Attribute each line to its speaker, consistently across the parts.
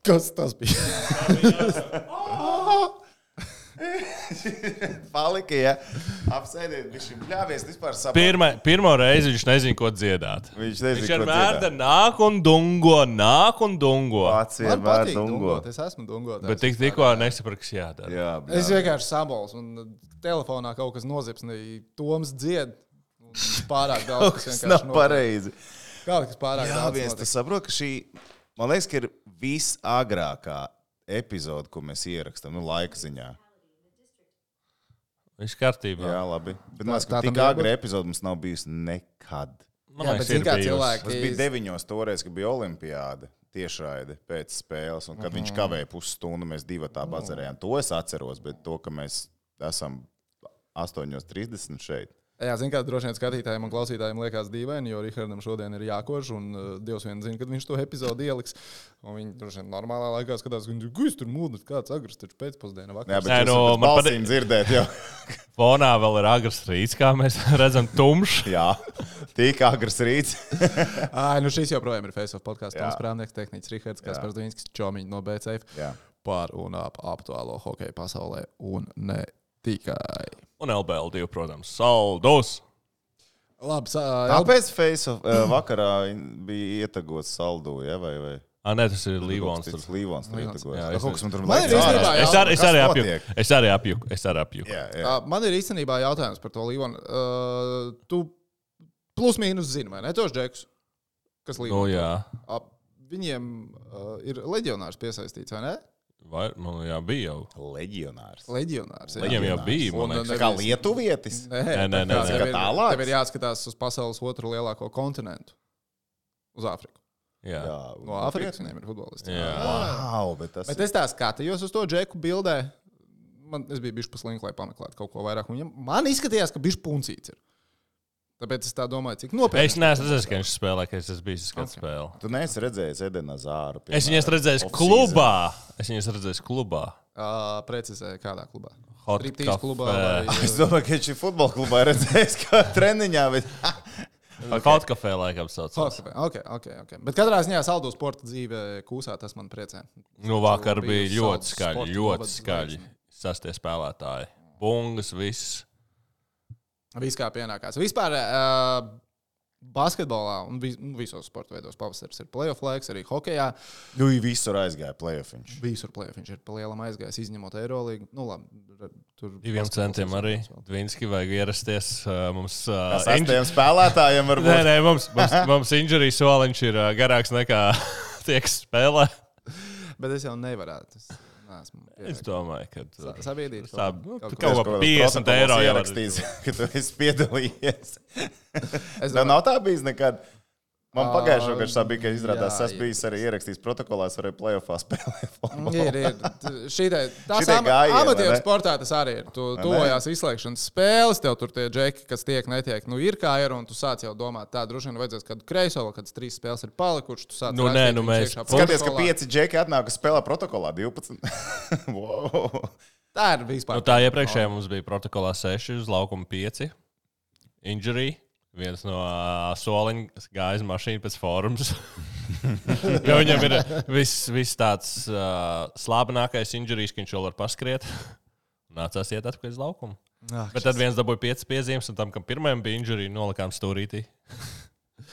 Speaker 1: Kas tas bija?
Speaker 2: Palika, ja apsēdiet, viņš ļāvies vispār saprot.
Speaker 3: Pirmo reizi viņš nezina, ko dziedāt.
Speaker 2: Viņš
Speaker 3: vienmēr nāk un dungo.
Speaker 2: Pats
Speaker 1: Man
Speaker 2: vienmēr
Speaker 1: patīk
Speaker 2: dungo.
Speaker 1: dungot, es esmu dungotājs.
Speaker 3: Bet tikko nesapratu, kas jādara.
Speaker 2: Jā,
Speaker 1: Es vienkārši sabols un telefonā kaut kas nozipsnīja. Toms dzied. Pārāk daudz, kas
Speaker 2: Tas
Speaker 1: vienkārši
Speaker 2: nav
Speaker 1: notiek.
Speaker 2: pareizi.
Speaker 1: Kaut kas pārāk
Speaker 2: Jā,
Speaker 1: daudz.
Speaker 2: viens,
Speaker 1: notiek.
Speaker 2: tu saprot, ka šī, man liekas, ka ir visagrākā epizode, ko mēs ierakstam, laika ziņā.
Speaker 3: Viņš kārtībā.
Speaker 2: Jā, labi. Bet man liekas,
Speaker 1: tā
Speaker 2: ka tik
Speaker 1: tam jābūt?
Speaker 2: agra epizode mums nav bijusi nekad.
Speaker 3: Man
Speaker 1: Jā,
Speaker 3: liekas,
Speaker 1: bet zini,
Speaker 3: ir
Speaker 1: kā
Speaker 3: bijusi.
Speaker 1: cilvēki-
Speaker 2: Tas bija 9 toreiz, kad bija olimpiāda tiešraide pēc spēles, un kad viņš kavēja pusstundu, mēs divi tā bazarējām. To es atceros, bet to, ka mēs esam 8:30 šeit.
Speaker 1: Jā, zinu, kā droši vien skatītājiem un klausītājiem liekas dīvaini, jo Rihardam šodien ir jākož, un Dievs vien zina, kad viņš to epizodi ieliks. Un viņi droši vien normālā laikā skatās, ka viņš tur mūdus, kāds agrs, taču pēcpusdiena
Speaker 2: Jā,
Speaker 1: vakar.
Speaker 2: bet
Speaker 3: Nē,
Speaker 2: jūs
Speaker 3: nu,
Speaker 2: varat
Speaker 3: man
Speaker 2: balsīm dzirdēt jau.
Speaker 3: Fonā vēl ir agrs rīts, kā mēs redzam, tumšs.
Speaker 2: Jā, tik agrs rīts.
Speaker 1: Ai, nu šis joprojām ir Face of podkāsts.
Speaker 2: Jā.
Speaker 1: Toms Prāvnieks, tehniķis Rihards,
Speaker 2: Jā.
Speaker 1: Kaspars Dvīnskis, Čomiņš no BCF
Speaker 2: Jā.
Speaker 1: par un ap aktuālo hokeju pasaulē un ne tikai.
Speaker 3: Un LBL2, protams, saldos.
Speaker 1: Labi,
Speaker 2: Kāpēc Face of vakarā bija ietagots saldu, ja, vai?
Speaker 3: Nē, tas ir Līvons.
Speaker 2: Tas Līvons tur ietegots.
Speaker 3: Jā,
Speaker 2: Kaut kas man tur
Speaker 1: Man ir
Speaker 2: liekas
Speaker 1: īstenībā
Speaker 2: ārā.
Speaker 3: Es arī apjuku.
Speaker 2: Jā, jā.
Speaker 1: Man ir īstenībā jautājums par to Līvonu. Tu plus mīnus zini, vai ne? Tos džekus, kas
Speaker 3: Nu,
Speaker 1: Līvonu.
Speaker 3: jā.
Speaker 1: Viņiem ir leģionārs piesaistīts, vai ne?
Speaker 3: Vai, man jā, bija jau.
Speaker 2: Leģionārs.
Speaker 1: Leģionārs. jā.
Speaker 3: Viņam jau bija,
Speaker 1: Un,
Speaker 3: man liekas.
Speaker 2: Tā kā lietuvietis.
Speaker 1: Nē,
Speaker 3: Nē,
Speaker 1: tev ir-
Speaker 2: tālāk?
Speaker 1: Tev ir jāskatās uz pasaules otru lielāko kontinentu. Uz Āfriku.
Speaker 3: Jā.
Speaker 1: No Āfrikas viņiem ir futbolisti.
Speaker 3: Jā.
Speaker 2: Wow, bet tas
Speaker 1: Bet es tā skatījos uz to džeku bildē. Es biju bijis paslinks, lai pameklētu kaut ko vairāk. Man izskatījās, ka bijis puncīts. Ir. Tāpēc es tā domāju, cik nopietni.
Speaker 3: Es neesmu redzējis, ka viņš spēlē, ka es esmu bijis skatījis spēli.
Speaker 2: Tu neesi redzējis Edena Zāru.
Speaker 3: Es viņu esmu redzējis klubā.
Speaker 1: Precizēju, kādā klubā.
Speaker 3: Hot
Speaker 1: Striptīz
Speaker 3: Cafe.
Speaker 1: klubā. Vai...
Speaker 2: Es domāju, ka viņš ir futbola klubā redzējis, kā treniņā. Bet...
Speaker 3: Kaut kafē laikam saucās.
Speaker 1: Okay. Bet katrā ziņā saldu sporta dzīve kūsā, tas man priecē.
Speaker 3: Nu, vakar bija
Speaker 1: Biju
Speaker 3: ļoti
Speaker 1: Saldus
Speaker 3: skaļi,
Speaker 1: sporta
Speaker 3: ļoti
Speaker 1: novads
Speaker 3: skaļi. Sastie spēlētāji. Bungas, viss.
Speaker 1: Viss kā pienākās. Vispār basketbolā un visos sporta veidos pavasaris ir playoff laiks, arī hokejā.
Speaker 2: Nu, visur aizgāja play-offiņš.
Speaker 1: Visur playoff viņš ir pa lielam aizgājis, izņemot Eirolīgu. Nu, labi, tur
Speaker 3: 2 centiem arī. Dvinski vajag ierasties. Mums
Speaker 2: Sastiem spēlētājiem varbūt.
Speaker 3: Nē, mums injury soliņš ir garāks nekā tie, kas spēlē.
Speaker 1: Bet es jau nevarētu.
Speaker 3: Es domāju, ka
Speaker 1: sabiedrīt
Speaker 3: kaut ko 50 eiro
Speaker 2: ierakstīs, ka tu esi piedalījies. Tev nav tā bijis nekad. Man pagājušo gadu tā bija, ka izrādās, es biju arī ierakstījis protokolā, es varēju playoffā spēlēt.
Speaker 1: Tas amatieru sportā tas arī ir. Tu tojās izslēgšanas spēles, tev tur tie džeki, kas tiek, netiek, nu ir kā ir, un tu sāc jau domāt, tā droši vien vajadzēs kādu kreiso, kādas 3 spēles ir palikušas, tu sāc
Speaker 3: rakstīt, mēs
Speaker 2: skaties, ka 5 džeki atnāk, kas spēlē protokolā 12. Wow.
Speaker 1: Tā ir vispār.
Speaker 3: Tā iepriekšējā mums bija protokolā 6, uz laukuma 5. Injury. Viens no soliņa gāja mašīna pēc forums. Jo viņam ir viss tāds slābenākais injurijs, ka viņš vēl var paskriet. Nācās iet atpakaļ uz laukumu. Bet tad viens dabūja 5 piezīmes, un tam, kam pirmajam bija injurija, nolikām stūrītī.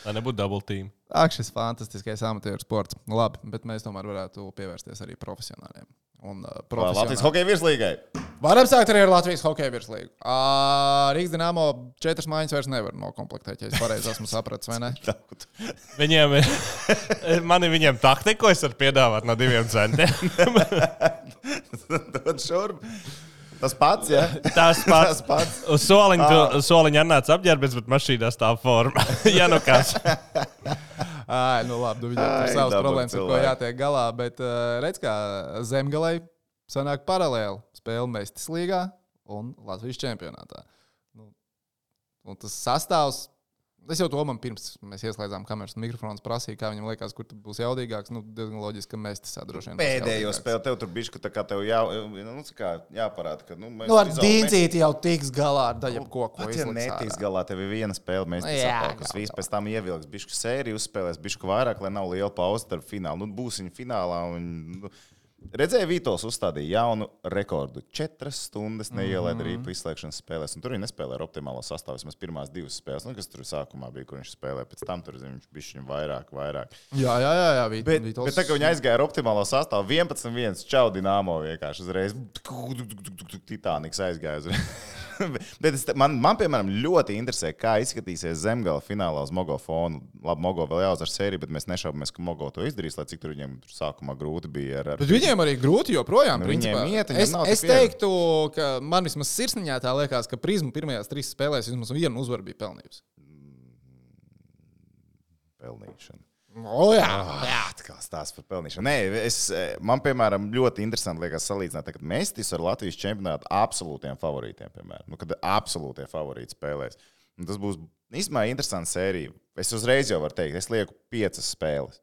Speaker 3: Lai nebūtu double team.
Speaker 1: Šis fantastiskais amatieru sports. Labi, bet mēs tomēr varētu pievērsties arī profesionāļiem.
Speaker 2: Latvijas hokeja virslīgai.
Speaker 1: Varam sākt arī ar Latvijas hokeja virslīgu. Rīgas Dinamo 4 mājiņas vairs nevar nokomplektēt, ja es pareizi esmu sapratis, vai ne?
Speaker 3: Viņiem taktiku es varu piedāvāt no 2 centiem.
Speaker 2: Dod šurp. Tas pats, jā?
Speaker 3: Tas pats. Uz soliņa atnāca apģērbies, bet mašīnā stāv forma. Ja nu kas.
Speaker 1: Nu labi, viņam tur savas problēmas, ar ko jātiek galā, bet redz, kā Zemgalei sanāk paralēli spēle Mestis līgā un Latvijas čempionātā. Un tas sastāvs Es jau to man pirms mēs ieslēdzām kameras un mikrofons prasīju, kā viņam liekas, kur būs jaudīgāks. Diezgan loģiski, ka mēs tas droši vien.
Speaker 2: Pēdējo spēli tev tur bija, ka tā kā tev jāparāda, ka
Speaker 1: ar dīncīti jau tiks galā ar daļu koku.
Speaker 2: Ja netiks galā, tev ir viena spēle, mēs tas viss pēc tam ievilks, bišku sēriju uzspēlēs, bišku vairāk, lai nav liela pauze starp finālu. Būs viņa finālā un... Redzēju, Vītols uzstādīja jaunu rekordu. 4 stundas neielaida arī izslēgšanas spēlēs. Un tur viņi nespēlē ar optimālo sastāvu. Vismaz pirmās 2 spēles, kas tur sākumā bija, kur viņš spēlēja. Pēc tam tur viņš bija vairāk.
Speaker 1: Jā.
Speaker 2: Bet tā, ka viņi aizgāja ar optimālo sastāvu, 11-1, čau Dinamo vienkārši uzreiz. Titaniks aizgāja uzreiz. Bet man, piemēram, ļoti interesē, kā izskatīsies Zemgala finālā uz Mogo fonu. Labi, Mogo vēl jāuzvar sēriju, bet mēs nešaubamies, ka Mogo to izdarīs, lai cik tur viņiem tur sākumā grūti bija. Bet
Speaker 1: viņiem arī grūti joprojām. Es teiktu, ka man vismaz sirsniņā tā liekas, ka Prizma pirmajās 3 spēlēs vismaz vienu uzvaru bija pelnījusi.
Speaker 2: Pelnīšana.
Speaker 1: Jā.
Speaker 2: Atkal stāsts par pelnīšanu. Nē, man, piemēram, ļoti interesanti liekas salīdzināt, kad Mestis ar Latvijas čempionātu absolūtiem favorītiem, piemēram. Kad absolūtie favorīti spēlēs. Un tas būs īstenībā interesants sērija. Es uzreiz jau varu teikt, es lieku 5 spēles.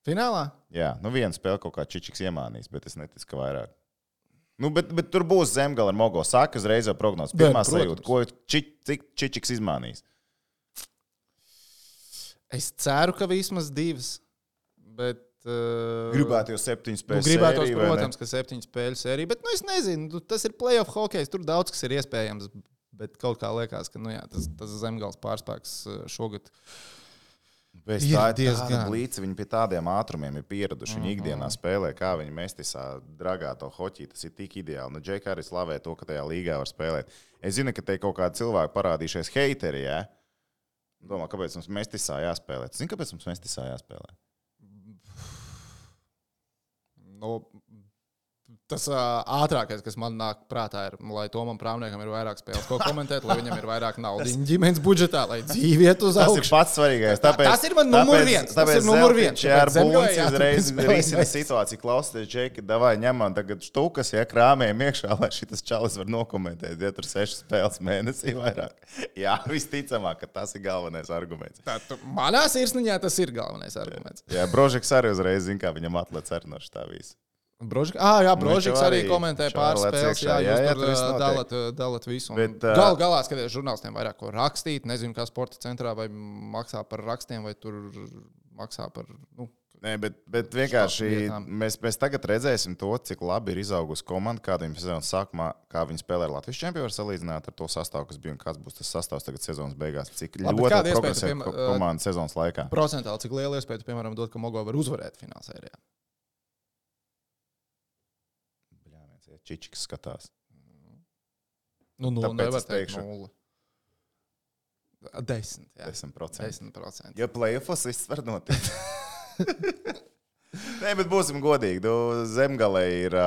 Speaker 1: Finālā?
Speaker 2: Jā, viena spēle kaut kā Čičiks iemānīs, bet es neticu, ka vairāk. Bet tur būs Zemgala ar Mogo. Saka uzreiz jau prognozes. Pirmā sajūta, ko cik Čičiks izmānīs.
Speaker 1: Es ceru, ka vismaz 2. Bet,
Speaker 2: gribētu jau 7 spēļu sēriju.
Speaker 1: Gribētu, protams, ka 7 spēļu sēriju. Bet es nezinu, tas ir playoff hokejs. Tur daudz kas ir iespējams. Bet kaut kā liekas, ka tas Zemgals pārspēks šogad.
Speaker 2: Bet tā ir diezgan blīca. Viņi pie tādiem ātrumiem ir pieraduši. Viņi ikdienā spēlē, kā viņi Mestisā dragā to hoķī. Tas ir tik ideāli. Džeki arī slavē to, ka tajā līgā var spēlēt. Es zinu, ka te kaut kādi cilvēki parādījušies heiteri, ja? Domā, kāpēc mums Mestisā jāspēlē? Zini, kāpēc mums Mestisā jāspēlē?
Speaker 1: Tas ātrākais, kas man nāk prātā, ir, lai Tomam Prāvniekam ir vairāk spēles, ko komentēt, lai viņam ir vairāk naudas ģimenes budžetā, lai dzīve iet uz augšu.
Speaker 2: Tas ir pats svarīgais. Tas
Speaker 1: ir man numur 1. Tas ir numur 1.
Speaker 2: Ja ar Bunci uzreiz risina situāciju, klausieties, Džeki, davai ņemam tagad štukas, ja krāmējam iekšā, lai šitas čalis var nokomentēt, ja tur 6 spēles mēnesī vairāk. Jā, visticamāk, ka tas ir galvenais arguments.
Speaker 1: Manā sirsniņā tas ir galvenais arguments.
Speaker 2: Jā, Brožiks arī uzreiz zina, kā viņam atlec arī no šitā visa.
Speaker 1: Brožiks arī komentē pāris spēles. Jā, jūs tur dalat visu. Galā skaties, žurnālistiem vairāk ko rakstīt. Nezinu, kā sporta centrā vai maksā par rakstiem, vai tur maksā par...
Speaker 2: Nē, bet vienkārši mēs tagad redzēsim to, cik labi ir izaugusi komanda, kāda viņam sezonas sākumā, kā viņi spēlē ar Latvijas čempionu, var salīdzināt ar to sastāvu, kas bija un kāds būs tas sastāvs tagad sezonas beigās. Cik ļoti progresē komanda sezonas laikā.
Speaker 1: Procentāli, cik liela iespēja, piemēram, dot, ka Mogo var uzvarēt finālsērijā.
Speaker 2: Čičiks skatās.
Speaker 1: Nevar teikt 0. 10. Jā.
Speaker 2: 10%. Ja playoffs viss var notikt. Nē, bet būsim godīgi. Zemgalē ir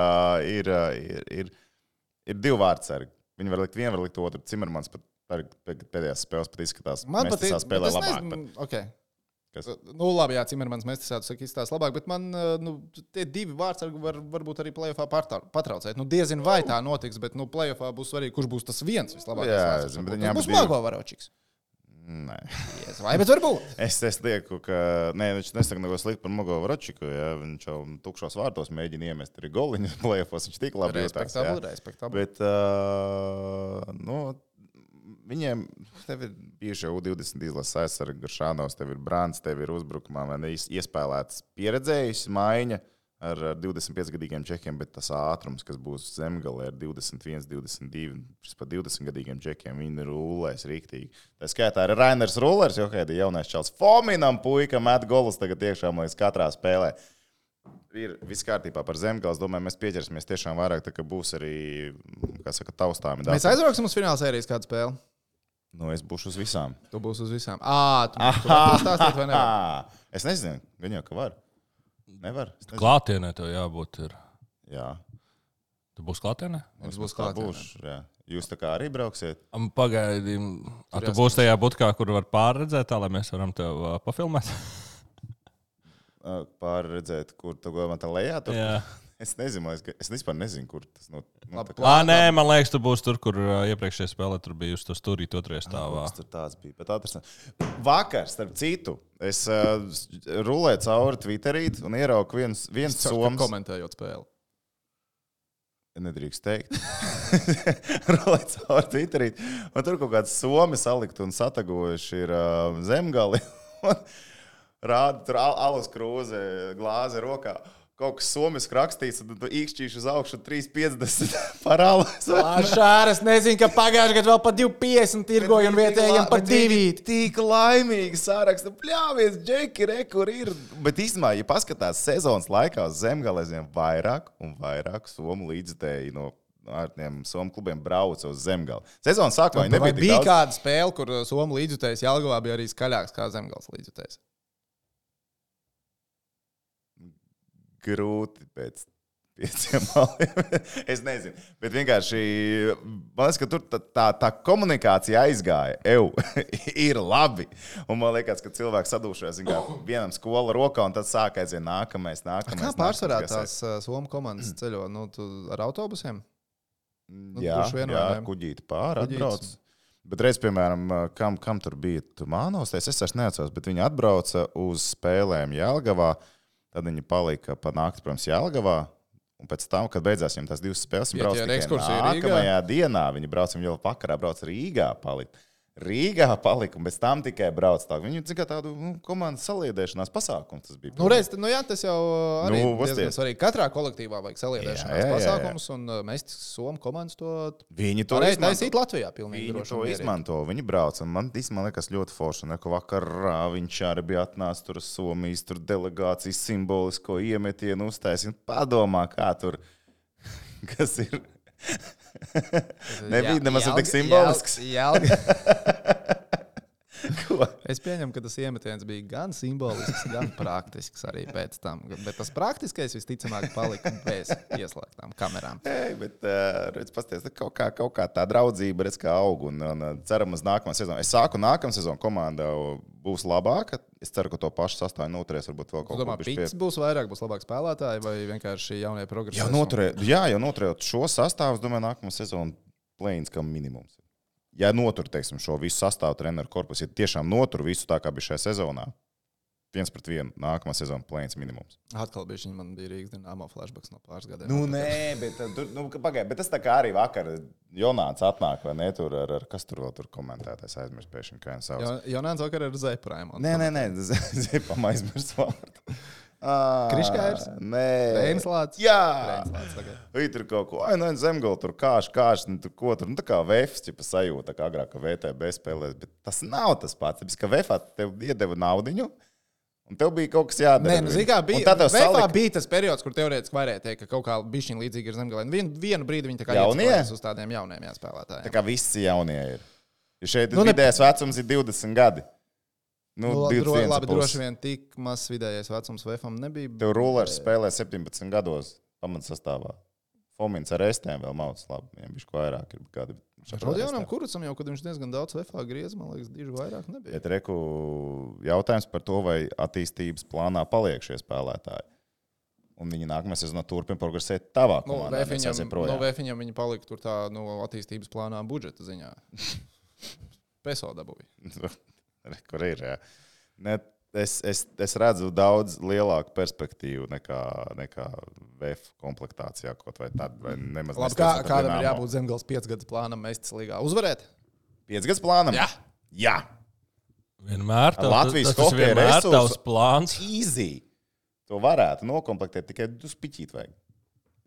Speaker 2: 2 vārdsargi. Viņi var likt vienu, var likt otru. Cimermans pat pēdējās spēles pat izskatās.
Speaker 1: Man
Speaker 2: patīk, spēlē labāk.
Speaker 1: Okay. Labi, jā, Cimermans Mestisātu saka, izstāsta labāk, bet man tie 2 vārdsargi varbūt arī playoffā patraucēt. Diezin vai tā notiks, bet playoffā būs svarīgi, kurš būs tas viens vislabākais vārdsargs. Tas būs Mogo Varočiks.
Speaker 2: Nē.
Speaker 1: Vai, bet varbūt.
Speaker 2: Es lieku, ka... Nē, viņš nesaka neko sliktu par Mogo Varočiku, ja viņš jau tukšos vārtos mēģina iemest arī goliņus playoffos, viņš tik labi jūtās.
Speaker 1: Respektabli.
Speaker 2: Bet, viņiem, tev ir bijuši jau 20 izlases aizsargi, Garšanovs, tev ir Brants, tev ir uzbrukumā, iespēlēts pieredzējis maiņa ar 25-gadīgiem čekiem, bet tas ātrums, kas būs Zemgalē ar 21, 22, pat 20-gadīgiem čekiem, viņi rulēs riktīgi. Tā skaitā arī Rainers Rullers, jo kādi jaunais čals Fominam puika met golus tagad iekšā līdz katrā spēlē. Ir viss kārtībā par Zemgales. Domāju, mēs pieķersimies tiešām vairāk, tā ka būs arī, kā saka, taustāmi.
Speaker 1: Mēs aizbrauksim uz fināla sērijas kādu spēli?
Speaker 2: Es būšu uz visām.
Speaker 1: Tu būsi uz visām. Tu vari stāstīt vai nevar?
Speaker 2: Es nezinu, gan jau, ka var. Nevar.
Speaker 3: Klātienē tev jābūt ir.
Speaker 2: Jā.
Speaker 3: Tu būsi klātienē?
Speaker 2: Es būšu klātienē. Jā. Jūs tā kā arī brauksiet?
Speaker 3: Pagaidīm. Tu būsi tajā butkā, kur var pārredzēt tā, lai mēs varam tev pafilmēt?
Speaker 2: Pārredzēt, kur tu gāvā tā lejā? Tur?
Speaker 3: Jā.
Speaker 2: Es nezinu, es vispār nezinu, kur tas
Speaker 3: Nē, man liekas, tu būsi tur, kur iepriekšējā spēlē tur bija uz to stūrīt otrajā stāvā.
Speaker 2: Tur tāds bija. Vakar, starp citu, es rulēju cauri Twitterīt un ieraugu viens soms.
Speaker 1: Komentējot spēli.
Speaker 2: Nedrīkst teikt. Rulēju cauri Twitterīt. Un tur kaut kāds somi salikt un satagojuši ir Zemgali. Rāda tur alus krūze, glāze rokā. Kaut kas somiski rakstīts, un tu īkšķīši uz augšu 3,50 par alu.
Speaker 1: Šāras nezinu, ka pagājušajā gadā vēl par 2,50 tirgoju un vietējiem par 2.
Speaker 2: Tik laimīgi sāraksta. Pļāvies, Džeki, kur ir. Bet īstenībā, ja paskatās sezonas laikā uz Zemgalēziem, vairāk un vairāk somu līdzstēji no ārtiem somu klubiem brauca uz Zemgali. Sezonas sākumā viņi nebija tik daudz.
Speaker 1: Bija kāda spēle, kur somu līdzstējs Jelgavā bija arī skaļāks kā Zemgals līdzstējs.
Speaker 2: Grūti pēc 5 maliem. Es nezinu. Bet vienkārši, man liekas, ka tur tā komunikācija aizgāja. Ir labi. Un man liekas, ka cilvēks sadūšojas vienam skola rokā, un tad sāk aiziet nākamais.
Speaker 1: Kā pārsvarā tās somu komandas ceļo? Ar autobusiem?
Speaker 2: Jā, kuģīti pāri atbrauc. Bet reiz, piemēram, kam tur bija Mānos, es vairs neatceros, bet viņi atbrauca uz spēlēm Jelgavā. Tad viņi palika pa nakti, protams, Jelgavā. Un pēc tam, kad beidzās viņiem tās 2 spēles, viņi brauca tikai nākamajā dienā. Viņi brauca, viņi jau vakarā brauca Rīgā palika. Un pēc tam tikai brauca tā. Viņi tikai tādu komandas saliedēšanās pasākumu tas bija.
Speaker 1: Tas jau arī diezgan svarīgi. Katrā kolektīvā vajag saliedēšanās pasākumus, un mēs somu komandas to
Speaker 2: viņi to
Speaker 1: taisīt Latvijā pilnīgi
Speaker 2: viņi to izmanto. Viņi brauc, un man liekas ļoti forši. Un vakarā viņš arī bija atnācis tur Somijas delegācijas simbolisko iemetienu uztaisīt. Padomā, kā tur, kas ir... Nebija nemaz tik simbolisks.
Speaker 1: Es pieņemu, ka tas iemetiens bija gan simbolisks, gan praktisks arī pēc tam. Bet tas praktiskais visticamāk palika bez ieslēgtām kamerām.
Speaker 2: Bet redz, pasties, kaut kā tā draudzība redz, kā aug. Un ceram uz nākamā sezonu. Es sāku nākamā sezonu komanda būs labāka. Es ceru, ka to pašu sastāvu noturēs. Varbūt vēl kaut ko
Speaker 1: pēc. Būs vairāk, būs labāk spēlētāji vai vienkārši jaunie progresi?
Speaker 2: Jau noturējot šo sastāvu, es domāju, nākamā sezona play-ins kā minimums. Ja notur, teiksim, šo visu sastāvu treneru korpusu, ja tiešām notur visu tā, kā bija šajā sezonā, 1-1, nākamā sezona play-ins minimums.
Speaker 1: Atkal man bija Rīgas Dinamo flashbacks no pāris gadiem.
Speaker 2: Nē, bet, pagaid, bet tas tā kā arī vakar Jonāns atnāk, vai ne, tur ar kas tur vēl tur komentētājs aizmirst pēkšņi, kā viņš sauc.
Speaker 1: Jonāns vakar ar Zepraimu.
Speaker 2: Nē, Zepam aizmirst vārdu.
Speaker 1: Kriškājers?
Speaker 2: Nē.
Speaker 1: Reinslāts?
Speaker 2: Jā.
Speaker 1: Reinslāts, okay.
Speaker 2: Viņi tur kaut ko, Zemgala tur kāš, tur ko tur, tā kā VFs, ķipa sajūta, tā kā agrāk, ka VTB spēlēs, bet tas nav tas pats. Tāpēc, ka VFā tev iedeva naudiņu, un tev bija kaut kas jādara.
Speaker 1: Nē, zikā, VFā bija tas periods, kur teorētiski varēja teikt, ka kaut kā bišķiņ līdzīgi ir Zemgalē. Vienu brīdi viņi tā kā iespēlēs uz tādiem jauniem spēlētājiem.
Speaker 2: Tā kā visi jaunie ir. Jo šeit vidējais vecums ir 20 gadi.
Speaker 1: Labi, droši vien tik mazs vidējais vecums VFam nebija.
Speaker 2: Tev Rulers spēlē 17 gados pamatsastāvā. Fomins ar estēm vēl mauc labi. Viņam bišķi vairāk ir kādi.
Speaker 1: Rodionam Kurucam jau, kad viņš diezgan daudz VFā griez, man liekas, diži vairāk nebija.
Speaker 2: Bet reku jautājums par to, vai attīstības plānā paliek šie spēlētāji. Un viņi nākamā sezonā turpina progresēt tavā komandā.
Speaker 1: VFiņam viņi palika tur tā attīstības plānā budžeta ziņā. Peso dabūja.
Speaker 2: Kur ir, jā. Es redzu daudz lielāku perspektīvu nekā VF komplektācijā kaut vai tad, vai nemaz
Speaker 1: labi, kādam ir jābūt Zemgals 5 gadus plānam Mestis līgā? Uzvarēt?
Speaker 2: 5 gadus plānam? Jā.
Speaker 3: Vienmēr
Speaker 2: Latvijas
Speaker 3: tas vienmēr tavs plāns.
Speaker 2: Easy. To varētu nokomplektēt, tikai pišķīt vajag.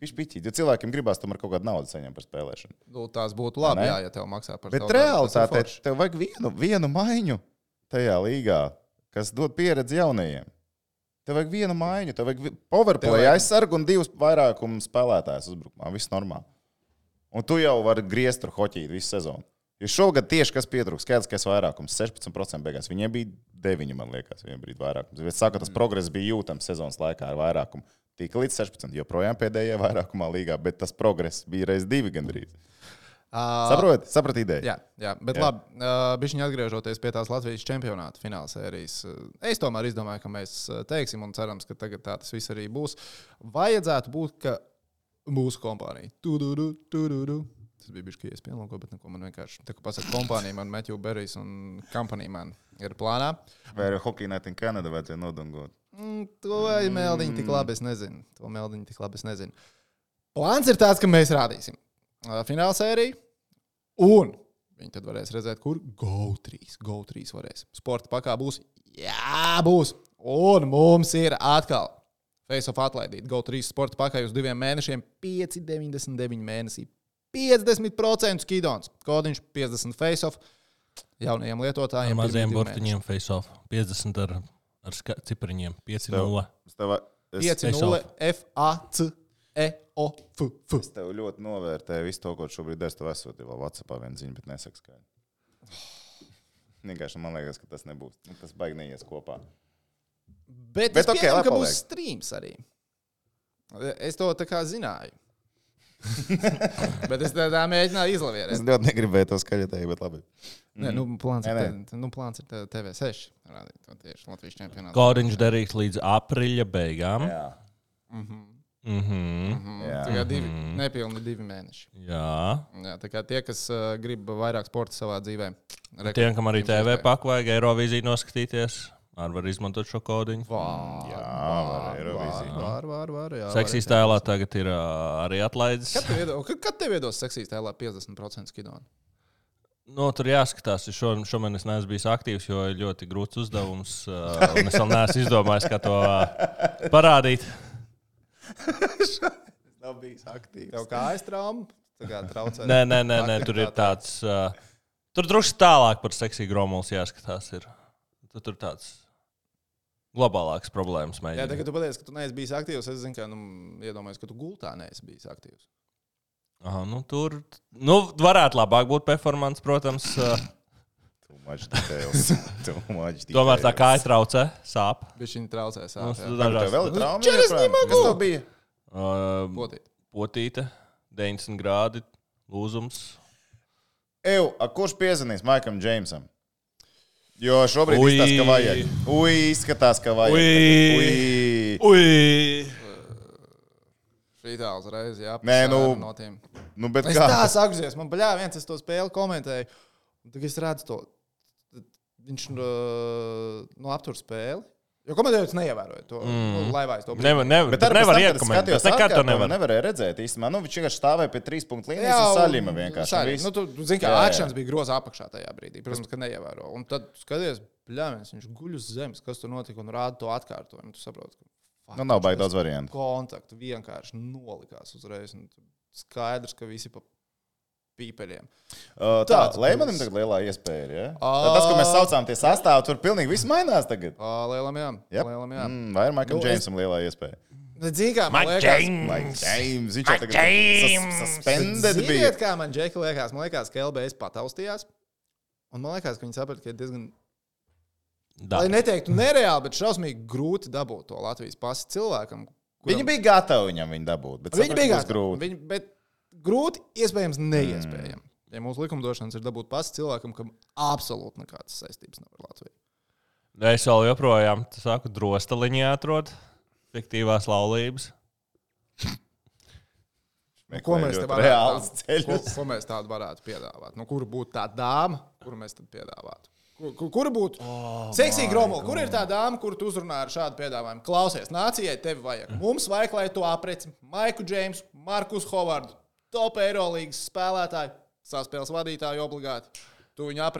Speaker 2: Pišķīt, jo cilvēkiem gribās tomēr kaut kādu naudu saņemt par spēlēšanu.
Speaker 1: Tās būtu labi, ja tev maksā par
Speaker 2: bet realitātē tev vajag vienu maiņu tajā līgā, kas dod pieredzi jaunajiem. Tev vajag vienu maiņu, tev vajag powerplay aizsargu un 2 vairākumu spēlētājus uzbrukumā. Viss normāli. Un tu jau vari griezt tur hoķīt visu sezonu. Jo šogad tieši kas pietrūks, skaidrs vairākums, 16% beigās. Viņiem bija 9, man liekas, viņiem bija vairākums. Es saku, tas progress bija jūtams sezonas laikā ar vairākumu. Tika līdz 16, joprojām pēdējā vairākumā līgā, bet tas progress bija reiz 2 gandrīz. Saprot ideju.
Speaker 1: Jā, bet labi, bišķiņi atgriežoties pie tās Latvijas čempionāta fināla sērijas. Es tomēr izdomāju, ka mēs teiksim un cerams, ka tagad tā tas viss arī būs. Vajadzētu būt, ka mūsu kompānija. Tas bija bišķi iespējams, bet neko man vienkārši. Tā kā pasaka kompānija, man Matthew Berrijs un company man ir plānā.
Speaker 2: Vai arī Hockey Night in Canada vajadzēja nodungot?
Speaker 1: To meldiņu tik labi es nezinu. Plāns ir tāds, ka mēs rādīsim fināla sēriju, un viņi tad varēs redzēt, kur GO3 varēs. Sporta pakā būs, būs, un mums ir atkal face-off atlaidīt GO3 sporta pakā uz 2 mēnešiem, 5,99 mēnesī, 50% skidons, kodiņš 50 face-off, jaunajiem lietotājiem.
Speaker 3: Ar maziem burtiņiem face-off, 50 ar cipariņiem, 5-0.
Speaker 1: 5-0 FAC. EOF.
Speaker 2: Es tev ļoti novērtēju visu to, ko šobrīd es tev esot, jau WhatsAppā viena ziņa, bet nesaka skaidri. Vienkārši man liekas, ka tas nebūs. Tas baigi neies kopā.
Speaker 1: Bet es pieņemu, ka būs streams arī. Es to tā kā zināju. Bet es tā mēģināju izlavierēt.
Speaker 2: Es ļoti negribēju to skaļotēju, bet labi.
Speaker 1: Nē, plāns ir TV6. Rādīt, tieši Latvijas čempionātā.
Speaker 3: Kodiņš derīgs līdz aprīļa beigām.
Speaker 2: Jā.
Speaker 1: Tā kā nepilni 2 mēneši.
Speaker 3: Jā,
Speaker 1: tā kā tie, kas grib vairāk sporta savā dzīvē.
Speaker 3: Tiem, kam arī TV paku vajag Eirovīziju noskatīties, var izmantot šo kodiņu.
Speaker 2: Var Eirovīziju.
Speaker 1: Var.
Speaker 3: Seksīs tēlā tagad ir arī atlaides.
Speaker 1: Kad tev iedos seksīs tēlā 50% skidonu?
Speaker 3: Tur jāskatās, šomēnes es neesmu bijis aktīvs, jo ir ļoti grūts uzdevums, un es vēl neesmu izdomājis, kā to parādīt.
Speaker 2: Nav bijis aktīvs.
Speaker 1: Tev kājas trauma? Traucē?
Speaker 3: Nē, tur ir tāds. Tur drusku tālāk par seksīgu gromulis jāskatās. Tur tāds globālāks problēmas mēģinājums.
Speaker 1: Jā, tagad tu pateici, ka tu neesi bijis aktīvs. Es zinu, ka iedomājos, ka tu gultā neesi bijis aktīvs.
Speaker 3: Aha, tur varētu labāk būt performance, protams. Tomēr tā kāja traucē, sāp.
Speaker 1: Bišķiņi traucē, sāp.
Speaker 2: Tev vēl ir trauma?
Speaker 1: Kas tev bija?
Speaker 3: Potīte, 90 grādi, lūzums.
Speaker 2: Kurš piezvanīs Maikam Džeimsam? Jo šobrīd izskatās, ka vajag.
Speaker 1: Šitā uzreiz, jā.
Speaker 2: Bet
Speaker 1: es tā sakzies, man viens es to spēli komentēju. Tad es redzu to, viņš aptur spēli. Jo komentējot neievēroja to laivājas to brīdi.
Speaker 2: Bet nevar iekomentēt. Es nekad to nevarēju redzēt īstenībā. Viņš vienkārši stāvēja pie 3 punktu līnijas un saļima vienkārši.
Speaker 1: Tu zini, kā akšanas bija groza apakšā tajā brīdī. Protams, ka neievēro. Un tad skaties, viņš guļ uz zemes, kas tur notika un rāda to atkārtojumu. Tu saproti, ka
Speaker 2: nav baigi daudz variantu.
Speaker 1: Kontaktu vienkārši nolikās uzreiz. Skaidrs, ka visi pa pīpeļiem.
Speaker 2: Leimanim tagad lielā iespēja ir, ja? Tas, ko mēs saucām tie sastāvi, tur pilnīgi viss mainās tagad.
Speaker 1: Lielam jā.
Speaker 2: Vai ir Maikam Džeimsam lielā iespēja?
Speaker 1: Mike
Speaker 2: James. Viņš jau tagad suspended bija.
Speaker 1: Ziniet, kā man Džeki liekas? Man liekas, ka LBS pataustījās. Un man liekas, ka viņi saprata, ka ir diezgan... Lai neteiktu nereāli, bet šausmīgi grūti dabūt to Latvijas pasi cilvēkam.
Speaker 2: Viņi bija gatavi viņam viņu dabūt, bet
Speaker 1: viņi bija grūti. Bet grūti, iespējams, neiespējami. Ja mūsu likumdošanas ir dabūt pasi cilvēkam, kam absolūti nekādas saistības nav ar Latviju.
Speaker 3: Es vēl joprojām, drostaliņā atrod fiktīvās laulības.
Speaker 1: Ko mēs tādu varētu piedāvāt? Kura būtu tā dāma, kuru mēs tad piedāvātu? Kura būtu seksīga gromula? Kur ir tā dāma, kuru tu uzrunā ar šādu piedāvājumu? Klausies, nācijai tevi vajag. Mums vajag, lai tu apreci Maiku Džeimsu, Markus Hovardu, top Eirolīgas spēlētāju, saspēles vadītāju obligāti.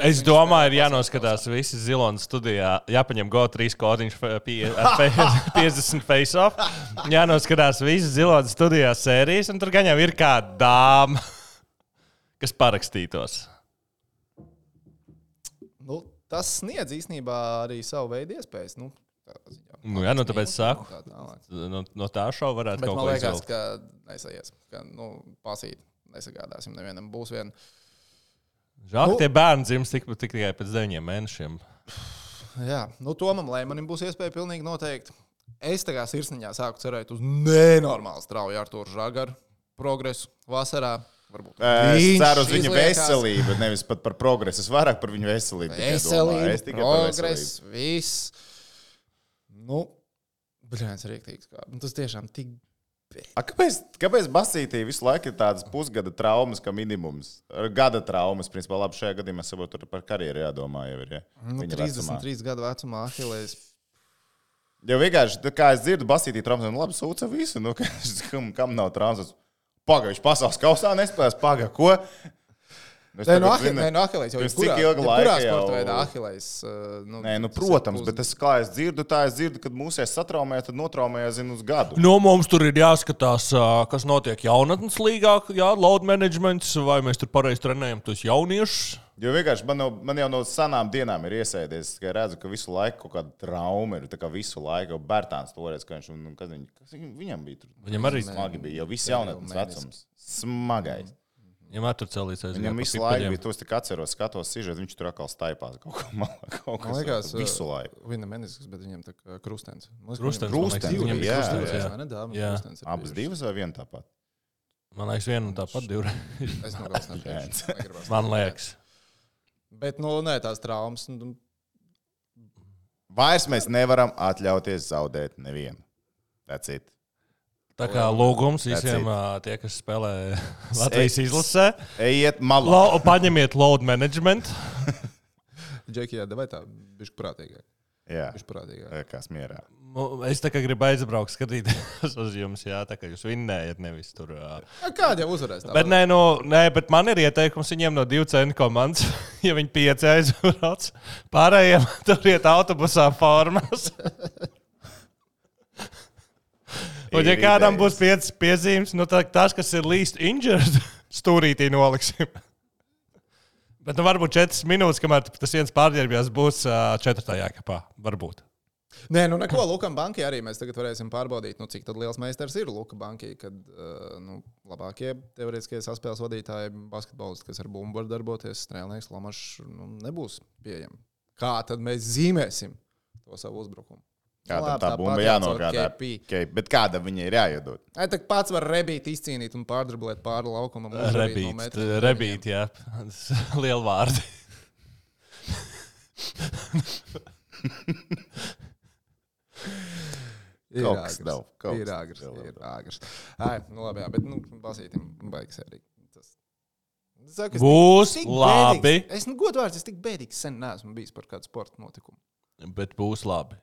Speaker 3: Es domāju, ir jānoskatās visi Zilonas studijā, jāpaņem GO3 kodiņš 50 face-off, jānoskatās visi Zilonas studijā sērijas, un tur gan jau ir kāda dāma, kas parakstītos.
Speaker 1: Tas sniedz īstenībā arī savu veidu iespējas.
Speaker 3: Tāpēc saku, no tā šova varētu
Speaker 1: bet
Speaker 3: kaut ko izvēlēt.
Speaker 1: Bet man liekas, ka nesaies, ka pasīt nesagādāsim nevienam. Būs vien...
Speaker 3: Žēl, ka tie bērni dzims tikai pēc 9 mēnešiem.
Speaker 1: Jā, Tomam Leimanim būs iespēja pilnīgi noteikti. Es tā kā sirsniņā sāku cerēt uz nenormāli strauju Artūru Žagaru progresu vasarā.
Speaker 2: Es ceru uz viņa veselību, nevis pat par progresu. Es vairāk par viņu veselību.
Speaker 1: Veselību, progress, viss. Nu, bļāns rīktīgs. Tas tiešām tik...
Speaker 2: Kāpēc Basītī visu laiku ir tādas pusgada traumas, kā minimums? Gada traumas, principā, labi, šajā gadījumā saprotu, tur par karjeru jādomā jau ir. Ja?
Speaker 1: 33 gadu vecumā Ahilejs.
Speaker 2: Jo vienkārši, kā es dzirdu, Basītī traumas, labi, sūca visu, nu, kam nav traumas. Paga, viņš pasaules kausā nespēlēs, paga, ko?
Speaker 1: Nē, Ahilejs jau ir kurā sporta veidā Ahilejs.
Speaker 2: Nē, protams, bet kā es dzirdu, kad mūsies satraumēja, tad notraumēja, uz gadu.
Speaker 3: Mums tur ir jāskatās, kas notiek jaunatnes līgā, load managements, vai mēs tur pareizi trenējam tos jauniešus.
Speaker 2: Jo vienkārši man jau no sanām dienām ir iesēdies, ka redzu, ka visu laiku kaut kāda trauma ir, tā kā visu laiku, jau Bērtāns toreiz, ka viņam bija tur.
Speaker 3: Viņam arī
Speaker 2: smagi bija, jau viss jaunatnes vecums. Smagais.
Speaker 3: Viņam tur celīs aiziet.
Speaker 2: Viņam visu laiku bija, tos tik atceros, skatos sižet, viņš tur atkal staipās kaut ko
Speaker 1: liekas,
Speaker 2: visu laiku.
Speaker 1: Viņa menisks, bet viņam tā krustens.
Speaker 2: Krustens,
Speaker 1: viņam
Speaker 2: jā.
Speaker 1: Abas
Speaker 2: divas vai viena tāpat?
Speaker 3: Man liekas, viena un tāpat divreiz.
Speaker 1: Es no galvas nepiešu.
Speaker 3: Man liekas.
Speaker 1: Bet, nē, tās traumas.
Speaker 2: Vairs mēs nevaram atļauties zaudēt nevienu. That's it.
Speaker 3: Tā kā lūgums visiem tie, kas spēlē Latvijas izlasē.
Speaker 2: Ejiet malā.
Speaker 3: Paņemiet load management.
Speaker 1: Džeki, vai tā bišķi prātīgāk?
Speaker 2: Jā,
Speaker 1: bišķi prātīgāk.
Speaker 2: Kas mierā.
Speaker 3: Es tā kā gribu aizbraukt skatīties uz jums, tā kā jūs vinnējat nevis tur.
Speaker 1: Kādi jau uzvarēs?
Speaker 3: Bet bet man ir ieteikums viņiem no 2 cenu komandas, ja viņi 5 aizbrauc. Pārējiem tur iet autobusā formās. Un ja kādam būs 5 piezīmes, tas, kas ir least injured, stūrītī noliksim. Bet varbūt 4 minūtes, kamēr tas viens pārģērbjās, būs 4. kapā. Varbūt.
Speaker 1: Nē, neko. Lukam Bankai arī mēs tagad varēsim pārbaudīt, cik tad liels meistars ir Luka Bankai, kad labākie teoretiskie saspēles vadītāji, basketbolisti, kas ar bumbu var darboties, strēlnieks Lamašs nebūs pieejami. Kā tad mēs zīmēsim to savu uzbrukumu?
Speaker 2: Kādam tā bumba jānogādā. Bet kāda viņa ir jāiedod?
Speaker 1: Tā pats var rebīt, izcīnīt un pārdriblēt pāri laukumam.
Speaker 3: Rebīt, jā. Liela vārdi.
Speaker 1: Ir āgrs. Labi, jā, bet basītim baigs arī.
Speaker 3: Būs labi.
Speaker 1: Es godvārds, es tik bēdīgs sen neesmu bijis par kādu sporta notikumu.
Speaker 3: Bet būs labi.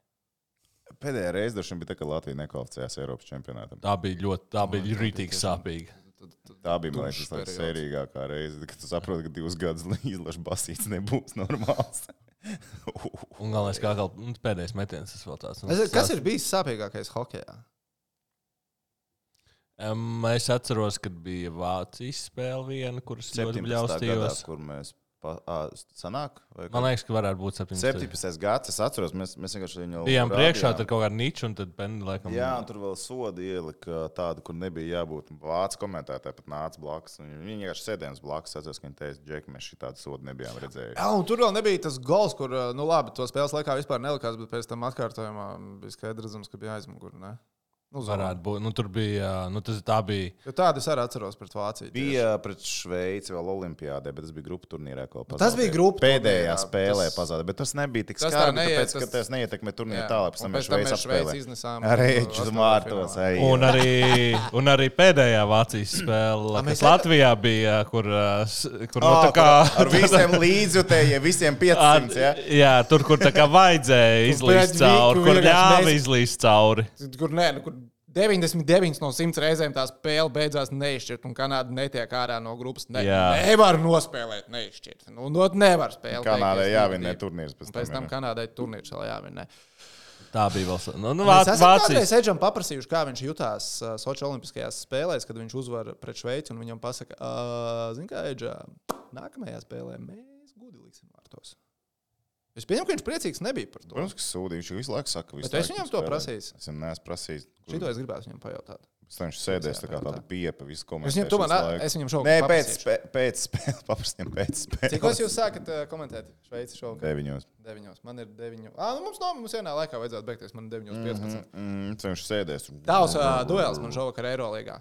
Speaker 2: Pēdējā reize droši vien bija tā, ka Latvija nekvalificējās Eiropas čempionātam.
Speaker 3: Tā bija rītīgi sāpīga.
Speaker 2: Tā bija, man liekas, tā sērīgākā reize, kad tu saproti, ka 2 gadus izlaša basīts nebūs normāls.
Speaker 3: Un galvenais, kā pēdējais metiens, tas vēl tāds.
Speaker 1: Kas ir bijis sāpīgākais hokejā?
Speaker 3: Es atceros, kad bija Vācijas spēle viena, kuras ļoti bļaustījos.
Speaker 2: Kur mēs sanāk?
Speaker 3: Man liekas, ka varētu būt
Speaker 2: 17. gads. Es atceros, mēs vienkārši viņu
Speaker 3: bijām priekšā, tad kaut kāda niča, un tad Penny laikam.
Speaker 2: Jā, un tur vēl sodi ielika tādu, kur nebija jābūt. Vācu komentētāji pat nāca blakus. Viņi vienkārši sēdējās blakus. Atceros, ka viņi teica, Džeki, mēs šitādu sodu nebijām redzējuši.
Speaker 1: Jā, un tur vēl nebija tas gols, kur, labi, to spēles laikā vispār nelikās, bet pēc tam atkārtojumā bija skaidrs redzams, ka bija aizmugur, ne?
Speaker 3: Varētu būt. Tur bija. Tā bija.
Speaker 1: Jo tādu es arī atceros pret Vāciju.
Speaker 2: Bija pret Šveici vēl Olimpiādē, bet tas bija grupu turnīrā.
Speaker 1: Tas bija grupu
Speaker 2: pēdējā spēlē pazaudē, bet tas nebija tik skarbi, tāpēc, ka tas neietekmē turnīru tālāk. Pēc tam mēs Šveici apspēlējām. Ar Eču Mārtos.
Speaker 3: Un arī pēdējā Vācijas spēle, kas Latvijā bija, kur tā kā...
Speaker 2: Ar visiem līdzjutējiem, visiem 500,
Speaker 3: jā, tur, kur tā kā vajadzēja izlīst cauri, kur ļāva izlīst cauri.
Speaker 1: Kur 99 no 100 reizēm tā spēle beidzās neizšķirt, un Kanāda netiek ārā no grupas. Nevar nospēlēt neizšķirt. Nevar spēlēt.
Speaker 2: Kanādai jāvinnē turnīrs.
Speaker 1: Pēc tam Kanādai turnīrs vēl jāvinnē.
Speaker 3: Tā bija vēl.
Speaker 1: Mēs esam kādreiz Edžam paprasījuši, kā viņš jutās Soči olimpiskajās spēlēs, kad viņš uzvar pret Šveici, un viņam pasaka, zini kā, Edžā, nākamajā spēlē mēs gudi liksim vārtos. Es pieņemu, ka viņš priecīgs nebija par to.
Speaker 2: Protams, ka sūdīgi. Viņš visu laiku saka,
Speaker 1: bet es viņam to prasīju.
Speaker 2: Es viņam neesmu prasījis.
Speaker 1: Šito es gribētu viņam pajautāt.
Speaker 2: Viņš sēdēs tā kā tāda piepa visu
Speaker 1: komentēt. Es viņam šovakar
Speaker 2: paprasīšu. Nē, pēc spēles. Paprasījām pēc spēles.
Speaker 1: Cikos jūs sākat komentēt Šveici šovakar?
Speaker 2: 9.
Speaker 1: Man ir 9. Mums vienā laikā vajadzētu beigties. Man ir 9.15.
Speaker 2: Viņš sēdēs.
Speaker 1: Tavs duels man šovakar Eirolīgā.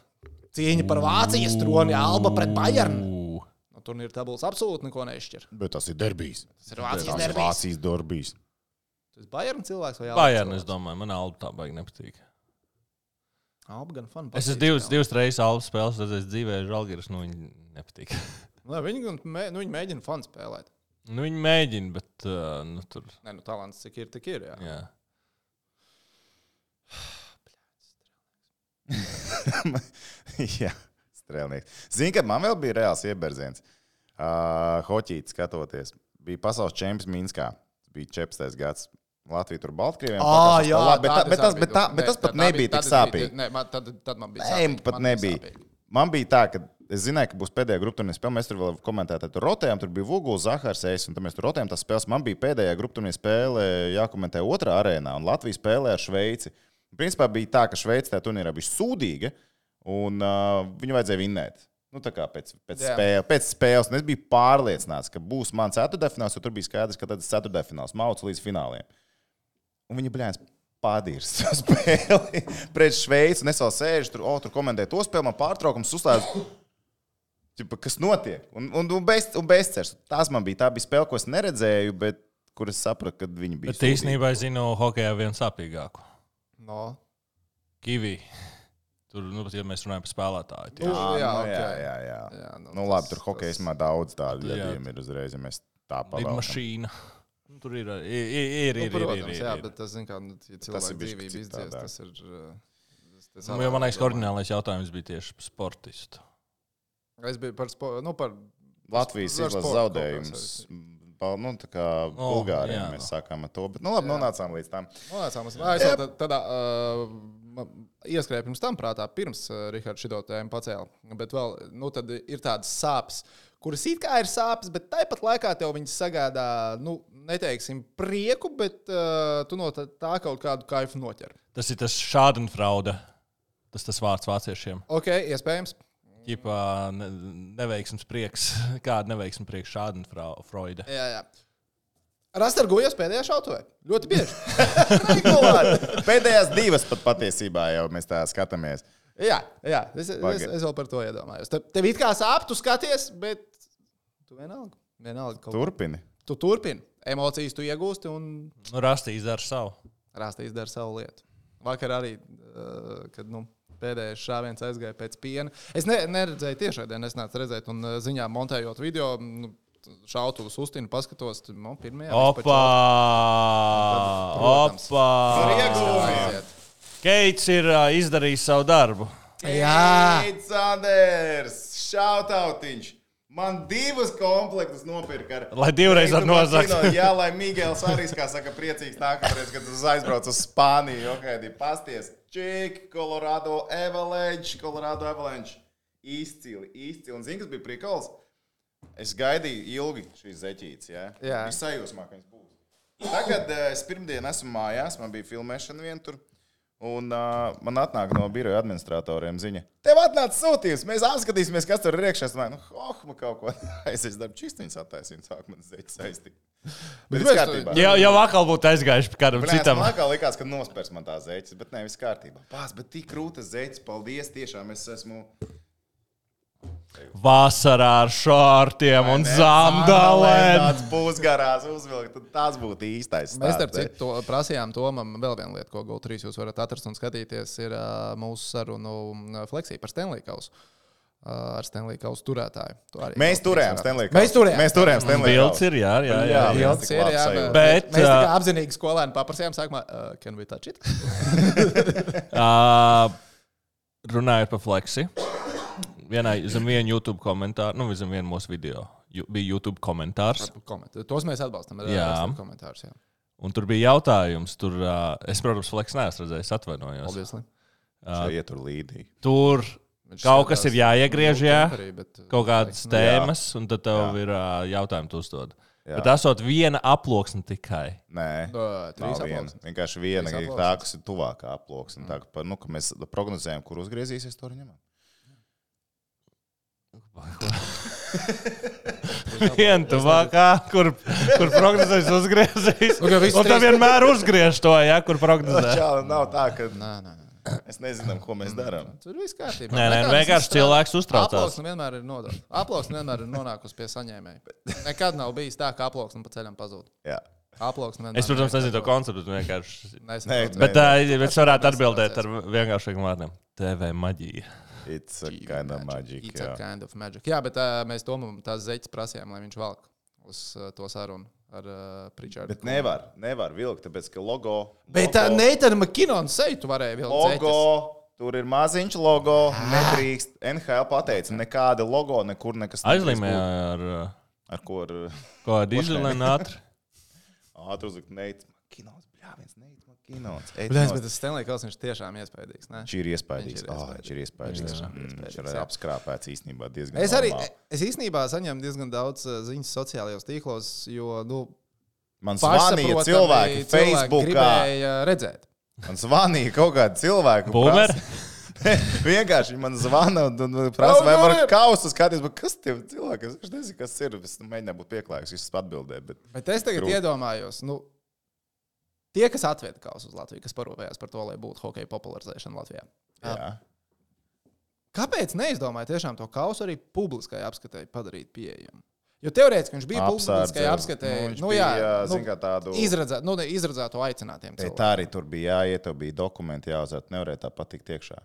Speaker 1: cīņa par Vācijas troni, Alba pret Bayernu. No turnīra tabulas absolūti neko nešķir.
Speaker 2: Bet tas ir derbijs.
Speaker 1: Tas ir Vācijas
Speaker 2: derbijs.
Speaker 1: Tas ir Bayernu cilvēks vai Alba?
Speaker 3: Bayernu, es domāju, man Alba tā baigi nepatīk.
Speaker 1: Alba gan fun.
Speaker 3: Es esmu divas reizes Alba spēles, redzējis dzīvē, Žalgiris, viņi nepatīk.
Speaker 1: Viņi mēģina fun spēlēt.
Speaker 3: Viņi mēģina, bet tur...
Speaker 1: Nē, talants cik ir, tik ir, jā.
Speaker 2: Jā, strēlnieks. Zini, kad man vēl bija reāls ieberziens. Hoķīti skatoties. Bija pasaules čempions Minskā. Bija 14. gads. Latvija tur Baltkrieviem. Bet tas pat nebija tik sāpīgi.
Speaker 1: Nē, tad man bija
Speaker 2: sāpīgi. Nē, pat nebija. Sāpīgi. Man bija tā, ka es zināju, ka būs pēdējā grupturnīra spēle. Mēs tur vēl komentējām, tur rotējām, tur bija Vuguls, Zahars, un tad mēs tur rotējām tās spēles. Man bija pēdējā grupturnīra spēle jākomentē otrā arēnā, un Latvija spēlē ar Šveici. Principā bija tā, ka Šveice tajā turnīrā bija sūdīga, un viņu vajadzēja vinnēt. Nu, tā kā pēc spēles. Un es biju pārliecināts, ka būs mans ceturtdaļfināls, jo tur bija skaidrs, ka tad ir ceturtdaļfināls, mauc līdz fināliem. Un viņi bļāns padīrs spēli pret Šveici, un es vēl sēžu tur komentēju to spēli, man pārtraukums uzslēdzu. Kas notiek? Un bezcers. Tā bija spēle, ko es neredzēju, bet kur es sapratu, ka viņi bija
Speaker 3: sūdīgi. Bet īstenībā es zinu hokejā vienu sāpīgāku.
Speaker 1: No.
Speaker 3: Kiwi. Tur, ja mēs runājam par spēlētāju.
Speaker 2: Jā. Nu labi, tur hokejismā daudz tādu gadījumu ir uzreiz, ja mēs tā pavēltam.
Speaker 3: Lidmašīna. Tur ir.
Speaker 1: Protams, jā, bet tas, zin kā, ja cilvēku dzīvība izdzies, tas ir...
Speaker 3: Man liekas, oriģinālais jautājums bija tieši par sportistu.
Speaker 1: Es biju par
Speaker 2: Latvijas izlases zaudējums. Nu, tā kā Bulgāriem mēs sākām ar to, bet nu labi, nonācām līdz tam.
Speaker 1: Es vēl tādā ieskrēju pirms tam prātā, pirms Rihards šito tēmu pacēla, bet vēl, nu, tad ir tādas sāpes, kuras it kā ir sāpes, bet tāpat laikā tev viņas sagādā, nu, neteiksim prieku, bet tu no tā kaut kādu kaifu noķer.
Speaker 3: Tas ir tas Schadenfreude, tas vārds vāciešiem.
Speaker 1: Ok, iespējams.
Speaker 3: Ķipā neveiksmes prieks. Kāda neveiksmes prieks Schadenfreude?
Speaker 1: Jā. Rastargojas pēdējā šautuvē. Ļoti bieži.
Speaker 2: Pēdējās divas pat patiesībā jau mēs tā skatāmies.
Speaker 1: Jā. Es vēl par to iedomājos. Tev it kā sāp, tu skaties, bet tu vienalga
Speaker 2: turpini.
Speaker 1: Tu turpini. Emocijas tu iegūsti un...
Speaker 3: Rastīs dara savu.
Speaker 1: Rastīs dara savu lietu. Vakar arī, kad, pēdējais šāviens aizgāja pēc piena. Es neredzēju tiešraidē, nesnācu redzēt, un ziņā montējot video, šautuvus uztinu, paskatos, pirmajā.
Speaker 3: Opa! Keits ir izdarījis savu darbu.
Speaker 1: Jā!
Speaker 2: Keits Anders! Šautautiņš! Man divas komplektus nopirka.
Speaker 3: Lai divreiz ar nozagt.
Speaker 2: Jā, lai Miguels arī, kā saka, priecīgs nākamreiz, kad uz aizbrauc uz Spāniju. Ok, pasties. Čik, Colorado Avalanche. Izcili. Un zini, kas bija prikals? Es gaidīju ilgi šīs zeķītes, jā?
Speaker 1: Jā.
Speaker 2: Bija sajūsmā, ka viņas būs. Tagad es pirmdien esmu mājās, man bija filmēšana vien tur. Un man atnāk no biroja administratoriem ziņa. Tev atnāca sūtījums, mēs apskatīsimies, kas tur ir iekšā. Es domāju, man kaut ko aizies darbu čistiņas attaisīt, sāk man zeķis saistīt. Bet viss kārtībā.
Speaker 3: Jau vakal būtu aizgājuši kādam citam.
Speaker 2: Man vakal likās, ka nospērs man tā zeķis, bet ne, viss kārtībā. Pās, bet tik krūtas zeķis, paldies, tiešām es esmu...
Speaker 3: Vasarā ar šortiem un zandalēm.
Speaker 2: Tāds pusgarās uzvilkt, tad tas būtu īstais.
Speaker 1: Mēs starp citu prasījām Tomam vēl vienu lietu, ko GO3 jūs varat atrast un skatīties, ir mūsu sarunu Fleksī par Stanley Kausu. Ar Stanley Kausu turētāju.
Speaker 2: Mēs turējām Stanley Kausu. Mēs turējām Stanley Kausu.
Speaker 3: Bilds ir, jā.
Speaker 1: Bilds ir, jā.
Speaker 3: Bet
Speaker 1: mēs tā kā apzinīgi skolēni paprasījām sākumā, can we touch it?
Speaker 3: Runājot par Fleksi. Zem vienu YouTube komentāru, zem vienu mūsu video, bija YouTube komentārs.
Speaker 1: Tos mēs atbalstam.
Speaker 3: Jā.
Speaker 1: Komentārs, jā.
Speaker 3: Un tur bija jautājums. Es, protams, Fleks neesmu redzējis, atvainojos.
Speaker 1: Obviously.
Speaker 2: Ietur līdī.
Speaker 3: Tur kaut kas ir jāiegriež, jā. Kaut kādas tēmas, un tad tev ir jautājumi tu uzdod. Jā. Bet esot viena aploksne tikai.
Speaker 2: Nē, nav viena. Vienkārši viena, tā, kas ir tuvākā aploksne. Tā, ka mēs prognozējam, kur uzgriezīsies, to arī ņemam.
Speaker 3: Viena tuvākā, kur prognozēs uzgriezīs. Un tā vienmēr uzgriež to, ja, kur prognozē.
Speaker 2: Čāli, nav tā, ka...
Speaker 1: Nē.
Speaker 2: Mēs nezinām, ko mēs darām.
Speaker 1: Tur viss kārtībā.
Speaker 3: Nē, vienkārši cilvēks uztraucās.
Speaker 1: Aploksne vienmēr ir nodota. Aploksne vienmēr ir nonākusi pie saņēmēja. Nekad nav bijis tā, ka aploksne pa ceļam pazūd.
Speaker 2: Jā.
Speaker 1: Aploksne vienmēr.
Speaker 3: Es, protams, nezinu to konceptu, vienkārši.
Speaker 1: Nesaprotu.
Speaker 3: Bet es varētu atbildēt ar vienkāršiem vārdiem. TV maģija.
Speaker 2: It's a kind of magic.
Speaker 1: It's a kind of magic. Jā, bet mēs Tomam tās zeķes prasījām, lai viņš valk uz to sarunu. Ar Pritchardu.
Speaker 2: Bet nevar vilkt, tāpēc, ka logo...
Speaker 1: Bet Neitana McKinnona seju tu varēji vilkt
Speaker 2: logo, tur ir maziņš logo, nedrīkst. NHL pateica, nekāda logo, nekur nekas.
Speaker 3: Aizlīmē
Speaker 2: ar ko ar...
Speaker 3: Ko ar dīzelēnu ātri?
Speaker 2: Ātri uzlikt Neitana McKinnons, bļāviens Neitana McKinnons.
Speaker 1: Bet tas Stanley Kausiņš tiešām iespaidīgs, ne?
Speaker 2: Šī ir iespaidīgs. Viņš ir apskrāpēts īstenībā diezgan
Speaker 1: Es īstenībā saņemu diezgan daudz ziņas sociālajos tīklos, jo,
Speaker 2: man zvanīja cilvēki Facebookā.
Speaker 1: Gribēja redzēt.
Speaker 2: Man zvanīja kaut kādi cilvēki.
Speaker 3: Boomer?
Speaker 2: Vienkārši man zvana un prasa, vai var kausu skatīties, bet kas tie cilvēki? Es nezinu, kas ir. Es mēģināju būt pieklājīgs, es atbildēju.
Speaker 1: Bet es tagad iedomājos, tie, kas atveda kausu uz Latviju, kas parūpējās par to, lai būtu hokeja popularizēšana Latvijā.
Speaker 2: Jā.
Speaker 1: Kāpēc neizdomāja tiešām to kausu arī publiskai apskatēji padarīt pieejamu? Jo teorētiski viņš bija publiskai apskatēji. Izredzētu aicinātiem cilvēkiem.
Speaker 2: Tā arī tur bija jāiet, tev bija dokumenti jāuzvērt, nevarēja tā patikt iekšā.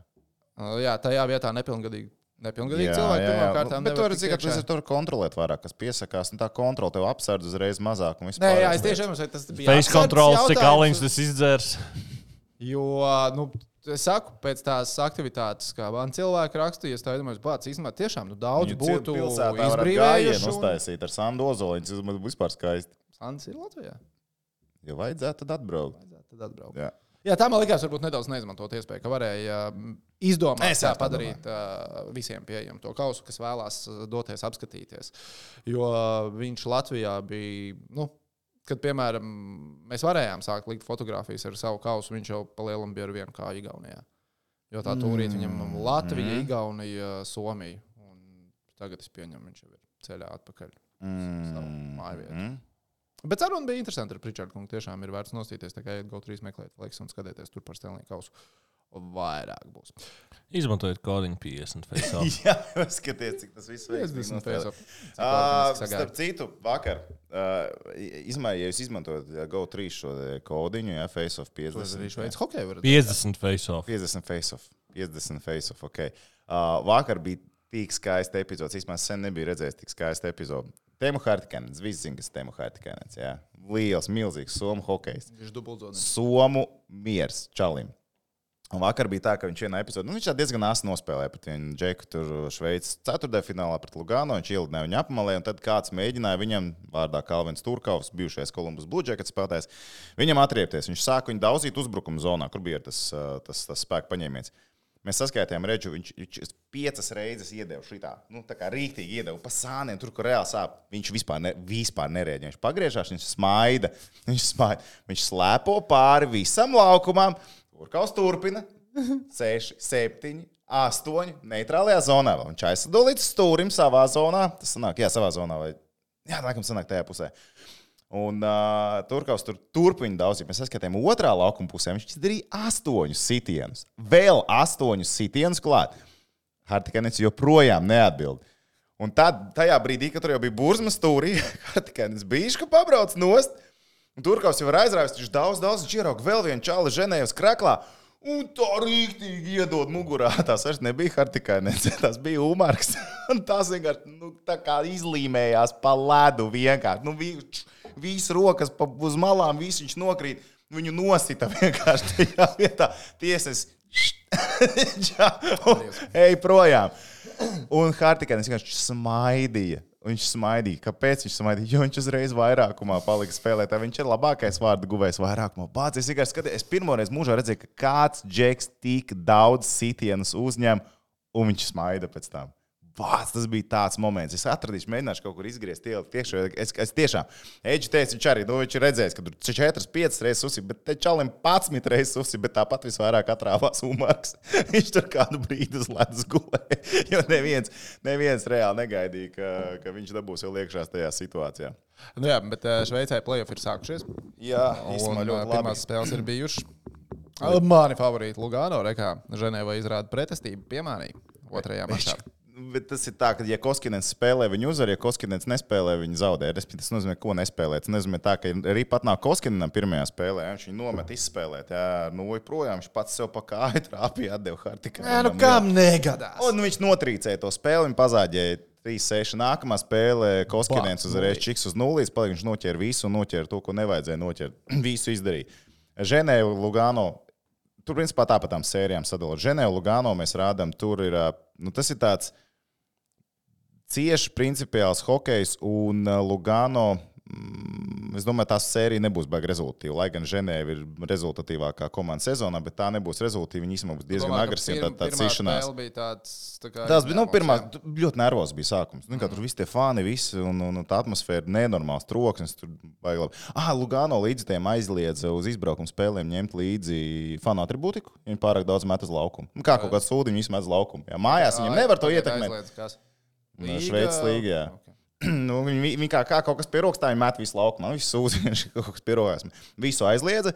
Speaker 1: Jā, tajā vietā nepilngadīgi cilvēki pirmkārt
Speaker 2: bet tur ir cik, ka tur kontrolēt vairāk, kas piesakās, un tā kontrola tev apsardz uzreiz mazāk un vispār.
Speaker 1: Nē, jā, es tiešām domāju, tas bija
Speaker 3: face kontrols, cik aliņus tas izdzērs.
Speaker 1: Jo, es saku, pēc tās aktivitātes, kā man cilvēki rakstīja, es tā domāju, bāc, īstenībā tiešām daudz būtu
Speaker 2: izbrīvējuši. Uztaisīt ar Sandu Ozoliņu, tas vispār skaisti.
Speaker 1: Sands ir Latvijā?
Speaker 2: Ja vajadzētu, tad atbraukt.
Speaker 1: Jā, tā man likās varbūt nedaudz neizmantot iespēju, ka varēja izdomāt tā padarīt visiem pieejamu to kausu, kas vēlās doties apskatīties. Jo viņš Latvijā bija, kad, piemēram, mēs varējām sākt likt fotogrāfijas ar savu kausu, viņš jau pa lielam bija ar vienu kā Igaunijā. Jo tā tūrīt viņam Latvija, Igaunija, Somija. Un tagad es pieņemu, viņš jau ir ceļā atpakaļ savu māju vietu. Bet saruna bija interesanti ar Pritchardu kungu. Tiešām ir vērts nostīties, tā kā iet GO3 meklēt laiks un skatieties tur par Stanley Kausu. Vairāk būs.
Speaker 3: Izmantojiet kodiņu 50 face-off.
Speaker 2: Jā, skaties, cik tas viss veiks.
Speaker 1: 50 face-off.
Speaker 2: Starp citu, vakar, ja jūs izmantojat GO3 šo kodiņu, face-off 50.
Speaker 3: 50 face-off.
Speaker 2: 50 face-off, ok. Vakar bija tik skaista epizodes. Īsmā sen nebija redzējis tik skaista epizode. Teemu Hartikanens, visi zina, kas Teemu Hartikanens, jā. Liels, milzīgs somu hokejs.
Speaker 1: Viņš dubultzodnis.
Speaker 2: Somu miers čalim. Un vakar bija tā, ka viņš vienā epizodē, viņš diezgan āsi nospēlēja pret vienu džeku tur Šveices ceturtdaļfinālā pret Lugano, viņš ielidināja viņu apmalē, un tad kāds mēģināja viņam, vārdā Kalvins Turkaus, bijušais Columbus Blue Jackets spēlētājs, viņam atriepties. Viņš sāka viņu daudzīt uzbrukuma zonā, kur bija tas spēka paņēmiens. Mēs saskaitījām redžu, viņš 5 reizes iedeva šitā, tā kā rīktīgi iedeva pa sāniem, tur, kur reāli sāp. Viņš vispār nerēģē. Viņš pagriežās, viņš smaida, viņš slēpo pāri visam laukumam. Turkaus turpina 6, 7, 8 neitrālajā zonā. Viņš aizsado līdz stūrim savā zonā. Tas sanāk, savā zonā. Laikam sanāk tajā pusē. Un Turkaus turpina daudz. Mēs saskatījām otrā laukuma pusē. Viņš izdarīja 8 sitienus. Vēl 8 sitienus klāt. Hartikanens joprojām neatbild. Un tajā brīdī, kad tur jau bija burzma stūrī, Hartikanens bišķi pabrauc nost. Un Turkaus jau ir aizrāvis. Viņš daudz ģirauga vēl vienu čali ženējus kraklā. Un tā rīktīgi iedod mugurā. Tas vairs nebija Hartikanens. Tas bija Umarks. Un tas vienkārši tā kā izlīmējās pa ledu vienkārši. Visi rokas uz malām, visi viņš nokrīt. Viņu nosita vienkārši tajā vietā. Tiesas ej projām. Un Hartikanens vienkārši smaidīja. Viņš smaidīja. Kāpēc viņš smaidīja? Jo viņš uzreiz vairākumā palika spēlētā. Viņš ir labākais vārdu guvējs vairākumā. Bāc, es vienkārši skatījos. Es pirmoreiz mūžā redzēju, ka kāds džeks tik daudz sitienus uzņem, un viņš smaida pēc tam. Bāc, tas bija tāds moments. Es atradīšu, mēģināšu kaut kur izgriezt tiekšā. Es tiešām, Eģi teica, viņš arī, viņš ir redzējis, ka tur 4-5 reizes uzsip, bet te čalim 11 reizes uzsip, bet tāpat visvairāk atrāvās Umarks. Viņš tur kādu brīdi uz ledus gulēja, jo neviens reāli negaidīja, ka viņš dabūs vēl iekšās tajā situācijā.
Speaker 1: Jā, bet Šveicē play-off ir sākušies.
Speaker 2: Jā, īstenībā ļoti labi.
Speaker 1: Pirmās spēles ir bijušas. Mani favorīti Lugano, rekā Ženēva izrāda pretestību, piemānīja otrajā mačā.
Speaker 2: Bet tas ir tā, ka, ja Koskinens spēlē, viņi uzvar, ja Koskinens nespēlē, viņi zaudē. Tas nozīmē, ko nespēlē. Tas nozīmē tā, ka arī pat nāk Koskinenam pirmajā spēlē, viņš viņu nomet izspēlēt. Jā, projām viņš pats sev pa kāju trāpīja, atdeva Hartikai.
Speaker 1: Kam negadās?
Speaker 2: Un viņš notrīcēja to spēli, viņa pazāģēja 3-6. Nākamā spēlē Koskinens uzreiz čiks uz nulles, palika viņš noķēra visu un noķēra to, ko nevajadzēja noķert. Visu izdarīja. Ženēva, Lugano, tur principā tā pa tām sērijām sadalot. Ženēva, Lugano mēs rādām, tur ir, tas ir tāds cieši principiāls hokejs un Lugano, es domāju, tās sērija nebūs baigi rezultatīva. Lai gan Ženēva ir rezultatīvākā komanda sezonā, bet tā nebūs rezultatīva. Viņa īstenībā būs diezgan agresīva. Tā cīšanās. Tas bija pirmā, ļoti nervos bija sākums. Tur visi tie fani, un tā atmosfēra nenormāls troksnis. Tur baigi labi. Lugano līdz tiem aizliedza uz izbraukumu spēlēm ņemt līdzi fanu atribūtiku. Viņi pārāk daudz met uz laukumu. Kā kaut kāds sūdi, viņi visi met uz laukumu. Jā, mājās viņiem nevar to ietekmēt. Šveices līga, jā. Okay. Viņi kā kaut kas pie rokas, tā viņi met visu laukumā. Visu sūdzi, viņš kaut kas pie rokas. Visu aizliedza.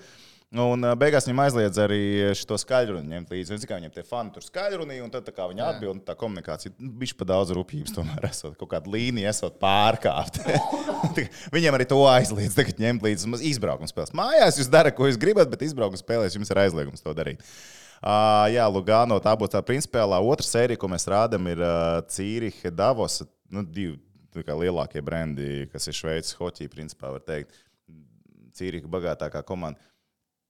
Speaker 2: Un beigās viņam aizliedza arī šo skaļruni ņemt līdzi. Viņam tie fani tur skaļrunīja, un tad tā kā viņi atbild, tā komunikācija bišķi pa daudz rupjības tomēr esot. Kaut kāda līnija esot pārkāpt. Viņiem arī to aizliedz tagad ņemt līdzi izbraukuma spēles. Mājās jūs dara, ko jūs gribat, bet izbraukuma spēlēs jums ir aizliegums to darīt. Jā, Lugano, tā būs tā principiālā otra sērija, ko mēs rādam, ir Cīrihe, Davos, divi lielākie brendi, kas ir Šveices hoķī, principā var teikt. Cīrihe bagātākā komanda.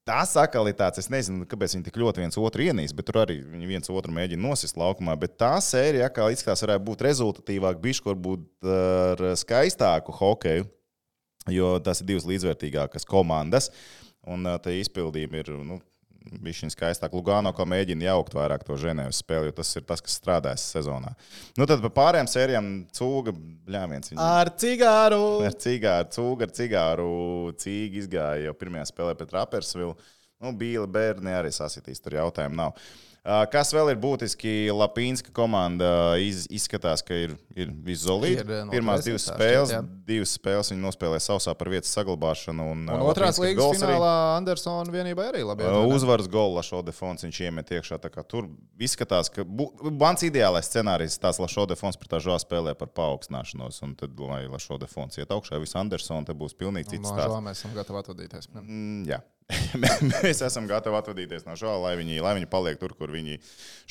Speaker 2: Tas atkal ir tāds, es nezinu, kāpēc viņi tik ļoti viens otru ienīst, bet tur arī viņi viens otru mēģina nosist laukumā, bet tā sērija atkal izskatās varētu būt rezultatīvāk, bišķi varbūt ar skaistāku hokeju, jo tas ir divas līdzvērtīgākas komandas, un tā izpildījumi ir, bišķiņ skaistāk. Lugano kā mēģina jaukt vairāk to Ženēvas spēli, jo tas ir tas, kas strādājas sezonā. Tad par pārējām sērijām Cūga, bļāviens.
Speaker 1: Ar cigāru!
Speaker 2: Cūga ar cigāru. Cīga izgāja jau pirmajā spēlē pret Rappersvilu. Bīli bērni arī sasitīs, tur jautājumu nav. Kas vēl ir būtiski? Lapīnska komanda izskatās, ka ir viszolīta. Pirmās divas spēles viņi nospēlē sausā par vietas saglabāšanu. Un
Speaker 1: otrās līgas finālā Andersona vienībai arī labi.
Speaker 2: Uzvaras golu Lašo de Fons viņš iemet iekšā. Tur izskatās, ka mans ideālais scenārijs tās Lašo de Fons pret tā žā spēlē par paaugstināšanos. Un tad, lai Lašo de Fons iet augšā, visu Andersonu, tad būs pilnīgi cits stāsts.
Speaker 1: Mēs esam gatavi atvadīties.
Speaker 2: Jā. Mēs esam gatavi atvadīties no žā, lai viņi paliek tur, kur viņi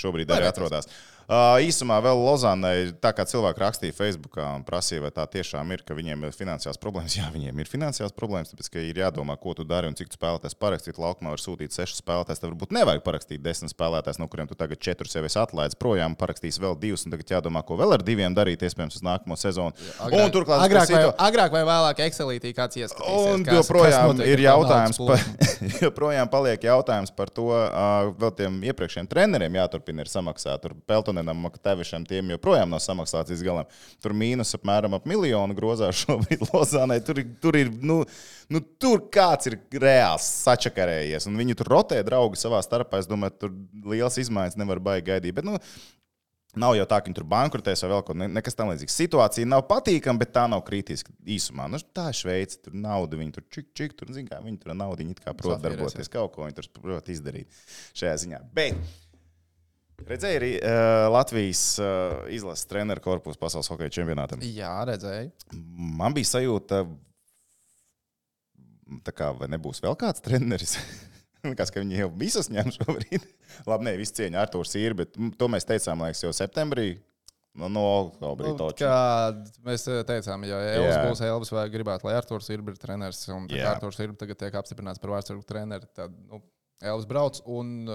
Speaker 2: šobrīd arī atrodas. Īsumā vēl Lozānai, tā kā cilvēki rakstīja Facebookā un prasīja, vai tā tiešām ir, ka viņiem ir finansiāls problēmas. Jā, viņiem ir finansiāls problēmas, tāpēc, ka ir jādomā, ko tu dari un cik tu spēlētājs parakstīt. Laukumā var sūtīt 6 spēlētājs, tad varbūt nevajag parakstīt 10 spēlētājs, no kuriem tu tagad 4 sev esi atlaidis projām, parakstīs vēl 2, un tagad jādomā, ko vēl ar 2 darīt, iespējams, uz nākamo sezonu. Un turklāt
Speaker 1: agrāk vai vēlāk Excelītī kāds ieskatīsies.
Speaker 2: Un joprojām ir jautājums joprojām paliek jautājums par to, vēl tiem iepriekšējiem treneriem jāturpina ir samaksāt. Tur Peltonenam, Maktavišam tiem joprojām nav samaksāts līdz galam. Tur mīnus apmēram ap 1 miljonu grozā šobrīd Lozānai. Tur ir, tur kāds ir reāls sačakarējies. Un viņi tur rotē draugi savā starpā. Es domāju, tur liels izmaiņas nevar baigi gaidīt. Bet, nav jau tā, ka viņi tur bankrotēs vai vēl kaut nekas tam līdzīgs. Situācija nav patīkama, bet tā nav kritiska īsumā. Tā ir Šveice, tur nauda, viņi tur čik, tur zin kā, viņi tur naudu, viņi it kā prot darboties, kaut ko viņi tur prot izdarīt šajā ziņā. Bet redzēji arī Latvijas izlases treneru korpusu pasaules hokeja čempionātam?
Speaker 1: Jā, redzēju.
Speaker 2: Man bija sajūta, tā kā vai nebūs vēl kāds treneris? Likās, ka viņi jau visus ņem šobrīd. Labi, ne, visu cieņu Artūrs ir, bet to mēs teicām, liekas, jau septembrī. No oktobra toču.
Speaker 1: Mēs teicām, ja Elvis būs Elvis vai gribētu, lai Artūrs ir treneris, un Artūrs ir tagad tiek apstiprināts par vārdsargu treneri, tad Elvis brauc. Un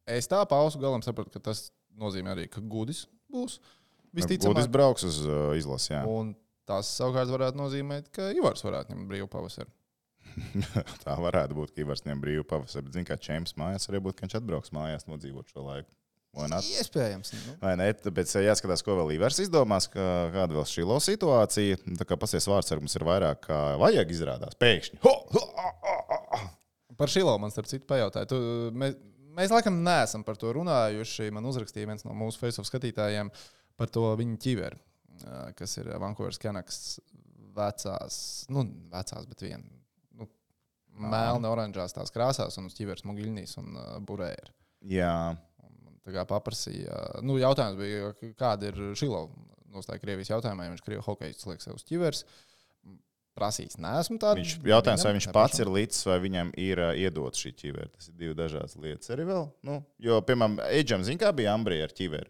Speaker 1: es tā pausu galam sapratu, ka tas nozīmē arī, ka Gudis būs visticamāk.
Speaker 2: Gudis brauks uz izlasi, jā.
Speaker 1: Un tas savukārt varētu nozīmēt, ka Ivars varētu ņemt brīvu pavasaru.
Speaker 2: Tā varētu būt, ka Ivars ņem brīvu pavasaru, bet zin kā Čemps mājās arī būtu, ka viņš atbrauks mājās nodzīvot šo laiku.
Speaker 1: Iespējams.
Speaker 2: Vai ne? Tāpēc jāskatās, ko vēl Ivars izdomās, kāda vēl šī situācija. Tā kā pasies vārdsargums ir vairāk, kā vajag izrādās. Pēkšņi.
Speaker 1: Par Šilo man starp citu pajautāju. Mēs laikam neesam par to runājuši. Man uzrakstīja viens no mūsu Facebook skatītājiem par to viņa ķiveri, kas ir Vancouveras Canucks vecās, bet viena. melni oranžās tās krāsās un uz ķiveres mugiļnīs un burēri.
Speaker 2: Jā.
Speaker 1: Tā kā paprasīja. Jautājums bija, kāda ir Šilova nostāja Krievijas jautājumā, ja viņš Krievu hokejists liek sev uz ķiveres. Prasīts, neesmu tādu.
Speaker 2: Viņš jautājums, vai viņš pats ir līdz, vai viņam ir iedot šī ķivere. Tas ir divi dažādas lietas arī vēl. Jo, piemēram, Eidžam, zin kā bija Ambrija ar ķiveri?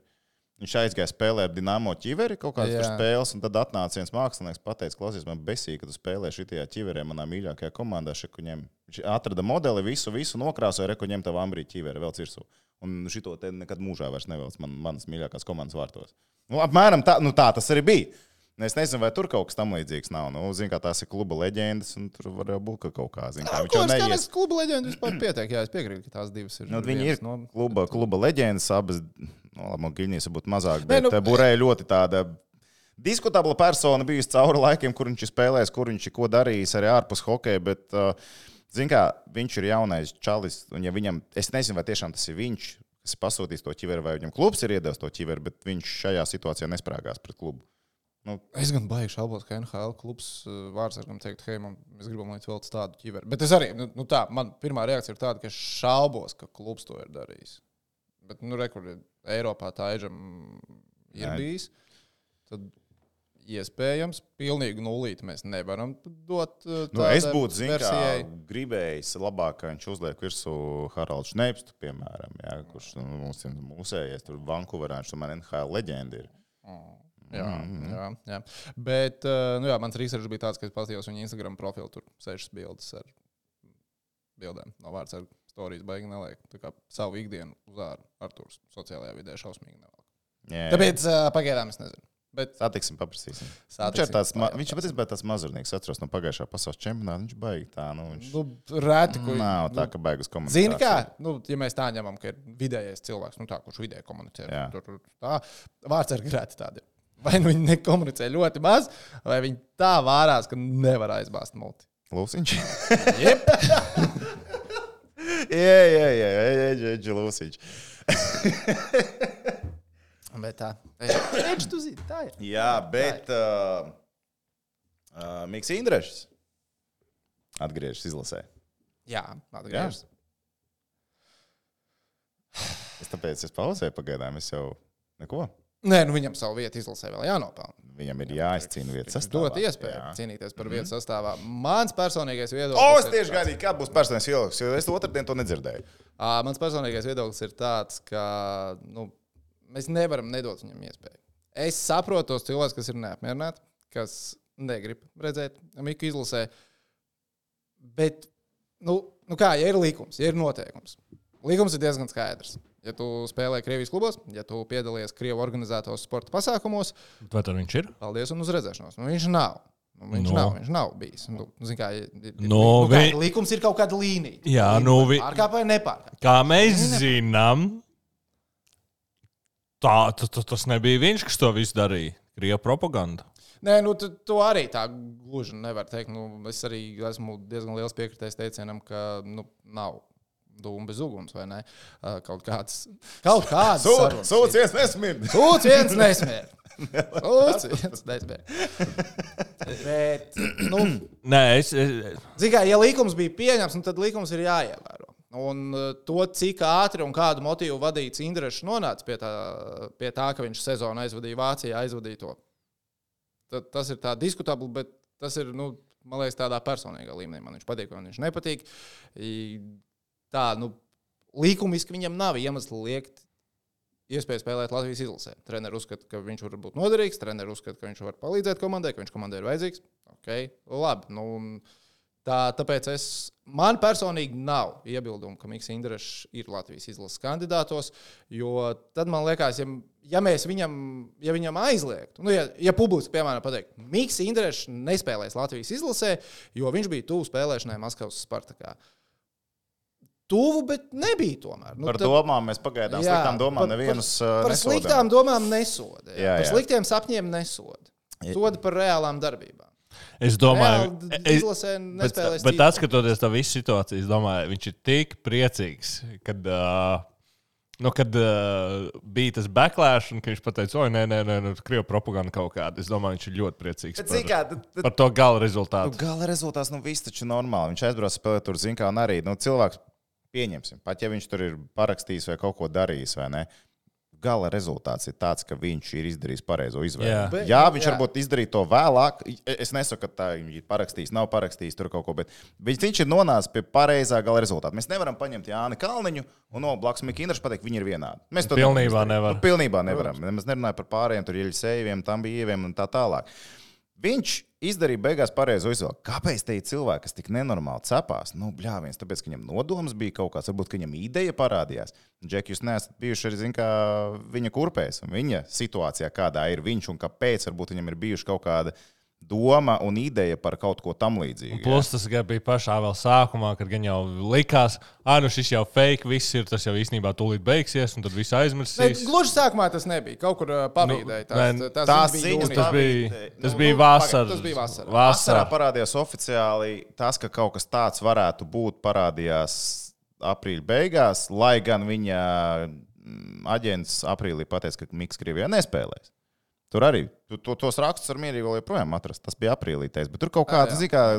Speaker 2: Viņš aizgāja spēlēt Dinamo ķiveri kaut kādas spēles, un tad atnāca viens mākslinieks, pateica, klausies, man besīja, ka tu spēlē šitajā ķiverē manā mīļākajā komandā. Viņš atrada modeli, visu nokrāsoja, reku ņem tavu Ambrija ķiveri vēl cirsū. Un šito te nekad mūžā vairs nevēlas manas mīļākās komandas vārtos. Apmēram tā tas arī bija. Es nezinu, vai tur kaut kas tam līdzīgs nav. Zinu, kā tās ir kluba leģendas, un tur var būt kaut kā. Zinu, kā viņš jau neies.
Speaker 1: Kluba leģendas vispār pietiek, jā, es piekrītu, ka tās divas ir.
Speaker 2: Viņi ir kluba leģendas, abas, Giļņīs būtu mazāk, bet Burēja ļoti tāda diskutabla persona bijusi cauri laikiem, kur viņš ir spēlējis, kur viņš ir ko darījis arī ārpus hokeja, bet, zinu, kā viņš ir jaunais čalis, un ja viņam, es nezinu, vai tiešām tas ir viņš, kas ir pasūtījis to ķiveri, vai viņam klubs ir iedevis to ķiveri, bet viņš šajā situācijā nesprāgās pret klubu.
Speaker 1: Es gan baigi šaubos, ka NHL klubs vārdsargam teikt, hei, mēs gribam, lai tu velc tādu ķiveri. Bet es arī, man pirmā reakcija ir tāda, ka es šaubos, ka klubs to ir darījis. Bet, rekur, Eiropā tā Eidžam ir bijis. Tad iespējams, pilnīgi nulīti mēs nevaram dot tādai
Speaker 2: es būtu,
Speaker 1: versijai.
Speaker 2: Gribējis labāk, ka viņš uzliek virsū Haraldu Šneipstu, piemēram, kurš mūsējies tur Vankūverā, viņš man NHL leģenda ir.
Speaker 1: Jā. Bet, mans research bija tāds, ka es paskatījos viņa Instagram profilu, tur 6 bildes ar bildēm no vārdsarga. Storijas baigi neliek. Tā kā savu ikdienu uz āru Artūrs sociālajā vidē šausmīgi nevelk. Tāpēc pagaidām es nezinu. Bet
Speaker 2: satiksim, paprasīsim. Viņš patiesībā tāds mazurnieks, atceros no pagājušā pasaules čempionāta. Viņš baigi tā.
Speaker 1: Rēti, ko...
Speaker 2: Nav tā, ka baigas komunikācija.
Speaker 1: Zini kā? Ja mēs tā ņemam, ka ir vidējais cilvēks, kurš vidēji komunicē. Tā vārdsargi rēti tādi. Vai viņi nekomunicē ļoti maz, vai viņi tā vārās, ka nevar aizbāzt multi.
Speaker 2: Lūsiņš?
Speaker 1: Jep.
Speaker 2: Jā, Lūsiņš.
Speaker 1: Bet tā. Edž, tu zini, tā ir.
Speaker 2: Jā, bet Miks Indrešs atgriežas izlasē.
Speaker 1: Jā, atgriežas.
Speaker 2: Tāpēc es pauzēju pagaidām, es jau neko.
Speaker 1: Nē, viņam savu vietu izlasē vēl jānopelna.
Speaker 2: Viņam ir jāizcīna vietas sastāvā.
Speaker 1: Dot iespēju cīnīties par vietas sastāvā. Mans personīgais viedoklis...
Speaker 2: Es tieši gaidīju, kāds būs personīgais viedoklis, jo es otrdien to nedzirdēju.
Speaker 1: Mans personīgais viedoklis ir tāds, ka mēs nevaram nedot viņam iespēju. Es saprotu tos cilvēkus, kas ir neapmierināti, kas negrib redzēt Miku izlasē. Bet, ja ir likums, ja ir noteikums. Likums ir diezgan skaidrs. Ja tu spēlē Krievijas klubos, ja tu piedalies Krievu organizētos sporta pasākumos,
Speaker 3: vai tad viņš ir?
Speaker 1: Paldies un uz redzēšanos. Viņš nav. Viņš nav bijis. Likums ir kaut kāda līnija.
Speaker 3: Jā,
Speaker 1: pārkāp vai nepārkāp.
Speaker 3: Kā mēs zinām, tas nebija viņš, kas to visu darīja. Krievu propaganda.
Speaker 1: Nē, to arī tā gluži nevar teikt. Es arī esmu diezgan liels piekritējs teicienam, ka nav dūmu bez uguns, vai ne? Kaut kāds sarunas.
Speaker 2: Sūds viens nesmird.
Speaker 1: Bet,
Speaker 3: Nē,
Speaker 1: zini kā, ja likums bija pieņems, tad likums ir jāievēro. Un to, cik ātri un kādu motīvu vadīts Indrešs nonāca pie tā, ka viņš sezonu aizvadīja Vācijā, aizvadīja to. Tas ir tā diskutabli, bet tas ir, man liekas, tādā personīgā līmenī. Man viņš patīk, vai viņš nepatīk. Tā, likumiski viņam nav iemesli liekt iespēju spēlēt Latvijas izlasē. Treneri uzskata, ka viņš var būt noderīgs, treneri uzskata, ka viņš var palīdzēt komandai, ka viņš komandai ir vajadzīgs. Labi. Tāpēc man personīgi nav iebildumu, ka Miks Indrešs ir Latvijas izlases kandidātos, jo tad man liekas, ja viņam aizliegtu, ja publiski, piemēram, pateikt, Miks Indrešs nespēlēs Latvijas izlasē, jo viņš bija tuvu spēlēšanai Maskavas Spartakā. Tuvu, bet nebija tomēr.
Speaker 2: Par domām mēs pagaidām sliktām domām nevienus nesodam.
Speaker 1: Par sliktām domām nesoda. Par sliktiem sapņiem nesoda. Soda par reālām darbībām.
Speaker 3: Es domāju,
Speaker 1: izlasē nespēlēs
Speaker 3: bet atskatoties tā visu situāciju, es domāju, viņš ir tik priecīgs, kad kad bija tas backlash, un viņš pateica, oi, nē, Krievu propaganda kaut kāda. Es domāju, viņš ir ļoti priecīgs par to gala rezultātu.
Speaker 2: Gala rezultāts, viss taču normāli. Viņš aizbrauc spēlēt tur, zin kā, un arī cilvēks pieņemsim. Pat ja viņš tur ir parakstījis vai kaut ko darījis, vai ne? Gala rezultāts ir tāds, ka viņš ir izdarījis pareizo izvēli. Jā, viņš varbūt izdarīja to vēlāk. Es nesaku, ka tā ir parakstījis, nav parakstījis tur kaut ko, bet viņš ir nonācis pie pareizā gala rezultāta. Mēs nevaram paņemt Jāni Kalniņu un no blakus Mika Indraša pateikt, viņi ir vienādi. Mēs to
Speaker 3: pilnībā nevaram.
Speaker 2: Pilnībā nevaram. Mēs nerunājam par pārējiem, tur Jeļisejeviem, Tambijeviem un tā tālāk. Viņš izdarīja beigās pareizo izvēli. Kāpēc te ir cilvēki, kas tik nenormāli cepās? Bļāviens, tāpēc, ka viņam nodoms bija kaut kāds, varbūt, ka viņam ideja parādījās. Džek, jūs neesat bijuši arī, zin kā, viņa kurpēs, un viņa situācijā, kādā ir viņš, un kāpēc, varbūt, viņam ir bijuši kaut kāda doma un ideja par kaut ko tam līdzīgu.
Speaker 3: Plus tas bija pašā vēl sākumā, kad gan jau likās, šis jau fake, viss ir, tas jau īstenībā tūlīt beigsies, un tad viss aizmirsīs.
Speaker 1: Gluži sākumā tas nebija. Kaut kur pavīdēja.
Speaker 2: Tās ziņas,
Speaker 3: tas bija vasarā.
Speaker 1: Tas bija vasarā.
Speaker 2: Vasarā parādījās oficiāli tas, ka kaut kas tāds varētu būt, parādījās aprīļa beigās, lai gan viņa aģents aprīlī pateica, ka Miks Krievijā nespēlēs. Tur arī tos rakstus ar mierīgi vēl joprojām atrast. Tas bija aprīlī teiks, bet tur kaut kāda